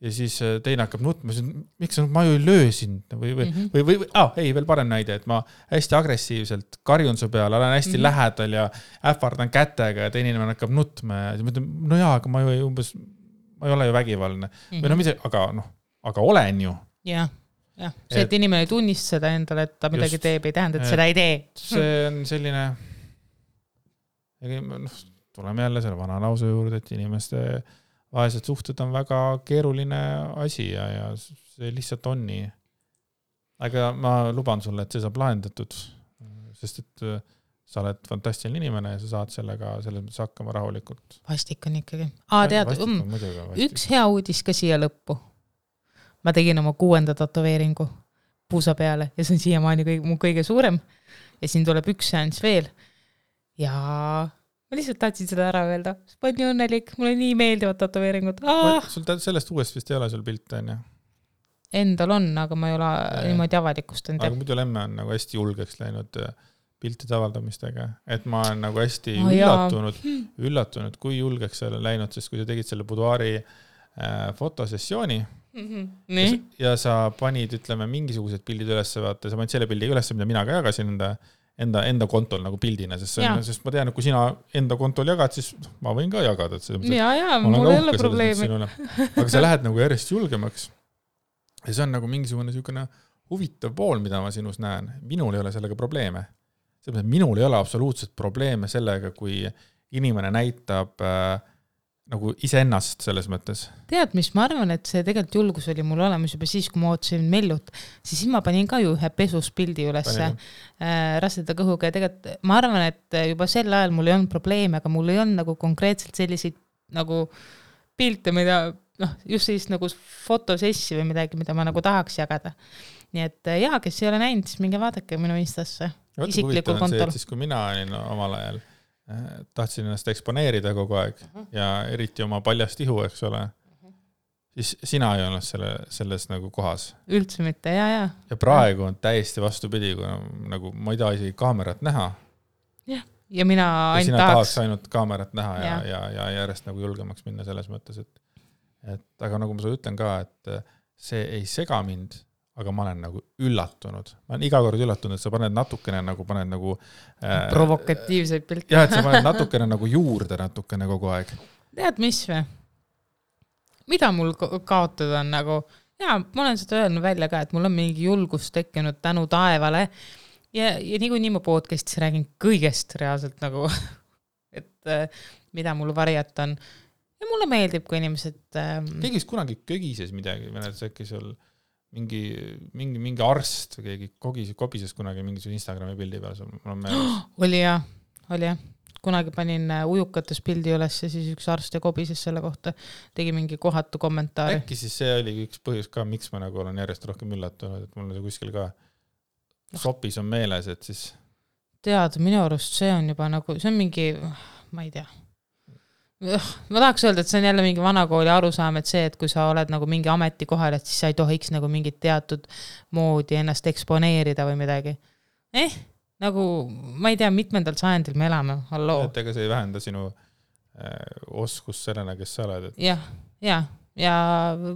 siis teine hakkab nutma, miks ma ju ei löö sind või veel parem näide, et ma hästi agressiivselt karjun su peale, olen hästi lähedal ja ähvardan kätega ja teine inimene hakkab nutma ja siis mõtlen, no jaa, aga ma ju umbes ma ei ole ju vägivaldne. Või no mitte, aga olen ju. Jah, see, et inimene ei tunnista seda endale, et ta midagi teeb, ei tähenda, et seda ei tee. See on selline, tuleme jälle selle vana lause juurde, et inimeste vahelised suhted on väga keeruline asi ja see lihtsalt on nii. Aga ma luban sulle, et see saab lahendatud, sest et sa oled fantastiline inimene ja sa saad sellega selles mõttes hakkama rahulikult. Vastik on ikkagi. Tead, üks hea uudis ka siia lõppu. Ma tegin oma 6. tatoveeringu puusa peale ja see on siiamaani mu kõige suurem ja siin tuleb üks seanss veel ja ma lihtsalt tahtsin seda ära öelda. Ma olen nii õnnelik, mulle nii meeldivad tatoveeringud. Sul sellest uuest vist ei ole sul pilte, on ju? Endal on, aga ma ei ole niimoodi avalikustanud. Aga muidu lemme on nagu hästi julgeks läinud piltide avaldamistega, et ma olen nagu hästi üllatunud, kui julgeks see on läinud, sest kui sa tegid selle buduaari fotosessiooni ja sa panid, ütleme, mingisugused pildid üles, vaata, sa panid selle pildi üles, mida mina ka jagasin enda kontol nagu pildina, sest ma tean, et kui sina enda kontol jagad, siis ma võin ka jagada. Mul ei ole probleemi. Aga sa lähed nagu järjest julgemaks ja see on nagu mingisugune huvitav pool, mida ma sinus näen. Minul ei ole sellega probleeme. Minul ei ole absoluutselt probleeme sellega, kui inimene näitab nagu iseennast selles mõttes. Tead, mis ma arvan, et see tegelikult julgus oli mul olemas juba siis, kui ma ootasin Mellut, siis ma panin ka ju ühe pesuspildi ülesse raseda kõhuga ja tegelikult ma arvan, et juba sel ajal mul ei olnud probleeme, aga mul ei olnud nagu konkreetselt selliseid nagu pilte, mida just siis nagu fotosessi või midagi, mida ma nagu tahaks jagada. Nii et kes ei ole näinud, siis minge vaadake minu Instasse. Isiklikul kontol. Siis kui mina olin omal ajal, tahtsin ennast eksponeerida kogu aeg ja eriti oma paljast ihu, eks ole, siis sina ei olnud selles nagu kohas. Üldse mitte, ja. Ja praegu on täiesti vastupidi, kui nagu ma ei taha isegi kaamerat näha. Ja mina ainult tahaks ainult kaamerat näha ja järjest nagu julgemaks minna selles mõttes, et aga nagu ma sulle ütlen ka, et see ei sega mind, aga ma olen nagu üllatunud. Ma olen iga kord üllatunud, et sa paned natukene nagu provokatiivseid pilte. Et sa paned natukene nagu juurde natukene kogu aeg. Tead, mis või? Mida mul kaotada on nagu, ma olen seda öelnud välja ka, et mul on mingi julgus tekkinud tänu taevale ja nii ma podcastis räägin kõigest reaalselt nagu, et mida mul varjata on. Ja mulle meeldib, kui inimesed... Keegi kunagi kögises midagi, äkki sul mingi arst või keegi kobises kunagi mingisuguse Instagrami pildi peal. Oli jah. Kunagi panin ujukates pildi üles ja siis üks arst ja kobises selle kohta. Tegi mingi kohatu kommentaari. Äkki siis see oli üks põhjus ka, miks ma nagu olen järjest rohkem üllatunud, et mul on kuskil ka sopis on meeles, et siis... Tead, minu arust see on juba nagu, see on mingi, ma ei tea. Ma tahaks öelda, et see on jälle mingi vanakooli arusaam, et see, et kui sa oled nagu mingi ameti kohal, et siis sa ei tohiks nagu mingit teatud moodi ennast eksponeerida või midagi. Nagu, ma ei tea, mitmendal sajandil me elame, halloo. Et ega see ei vähenda sinu oskus sellena, kes sa oled. Ja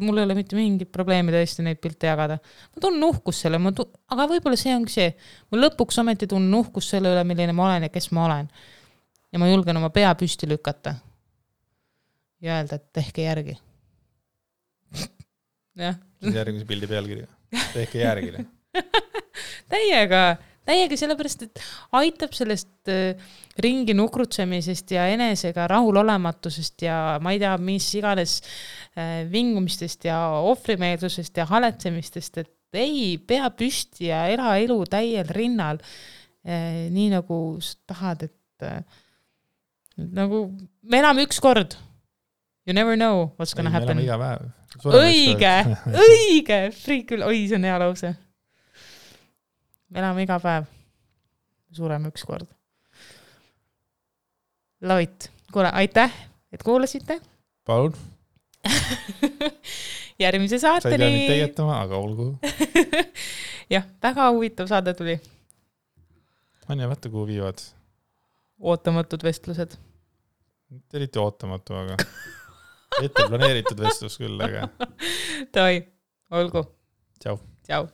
mul ei ole mitte mingit probleemi tõesti neid pilte jagada. Ma tunnen uhkus selle, aga võib-olla see ongi see. Ma lõpuks ometi tunnen uhkus selle üle, milline ma olen ja kes ma olen. Ja ma julgen oma pea püsti lükata. Ja öelda, et tehke järgi. Järgmise pildi pealkirja. Tehke järgi. Täiega sellepärast, et aitab sellest ringi nukrutsemisest ja enesega rahulolematusest ja ma ei tea, mis iganes vingumistest ja ohvrimeelsusest ja haletsemistest, et ei, pea püsti ja ela elu täiel rinnal. Nii nagu sa tahad, et nagu me elame üks kord. You never know what's gonna happen. Me elame iga päev. Õige, friik küll. Oi, see on hea lause. Me elame iga päev. Sureme üks kord. Lovit. Kuule, aitäh, et kuulasite. Palun. Järgmise saateni. Sa ei pea nüüd tegetama, aga olgu. Jah, väga huvitav saade tuli. Anja, vaata, kuhu viivad. Ootamatud vestlused. Eriti ootamatu, aga ette planeeritud vestlus küll, aga... Toi, olgu. Tšau. Tšau.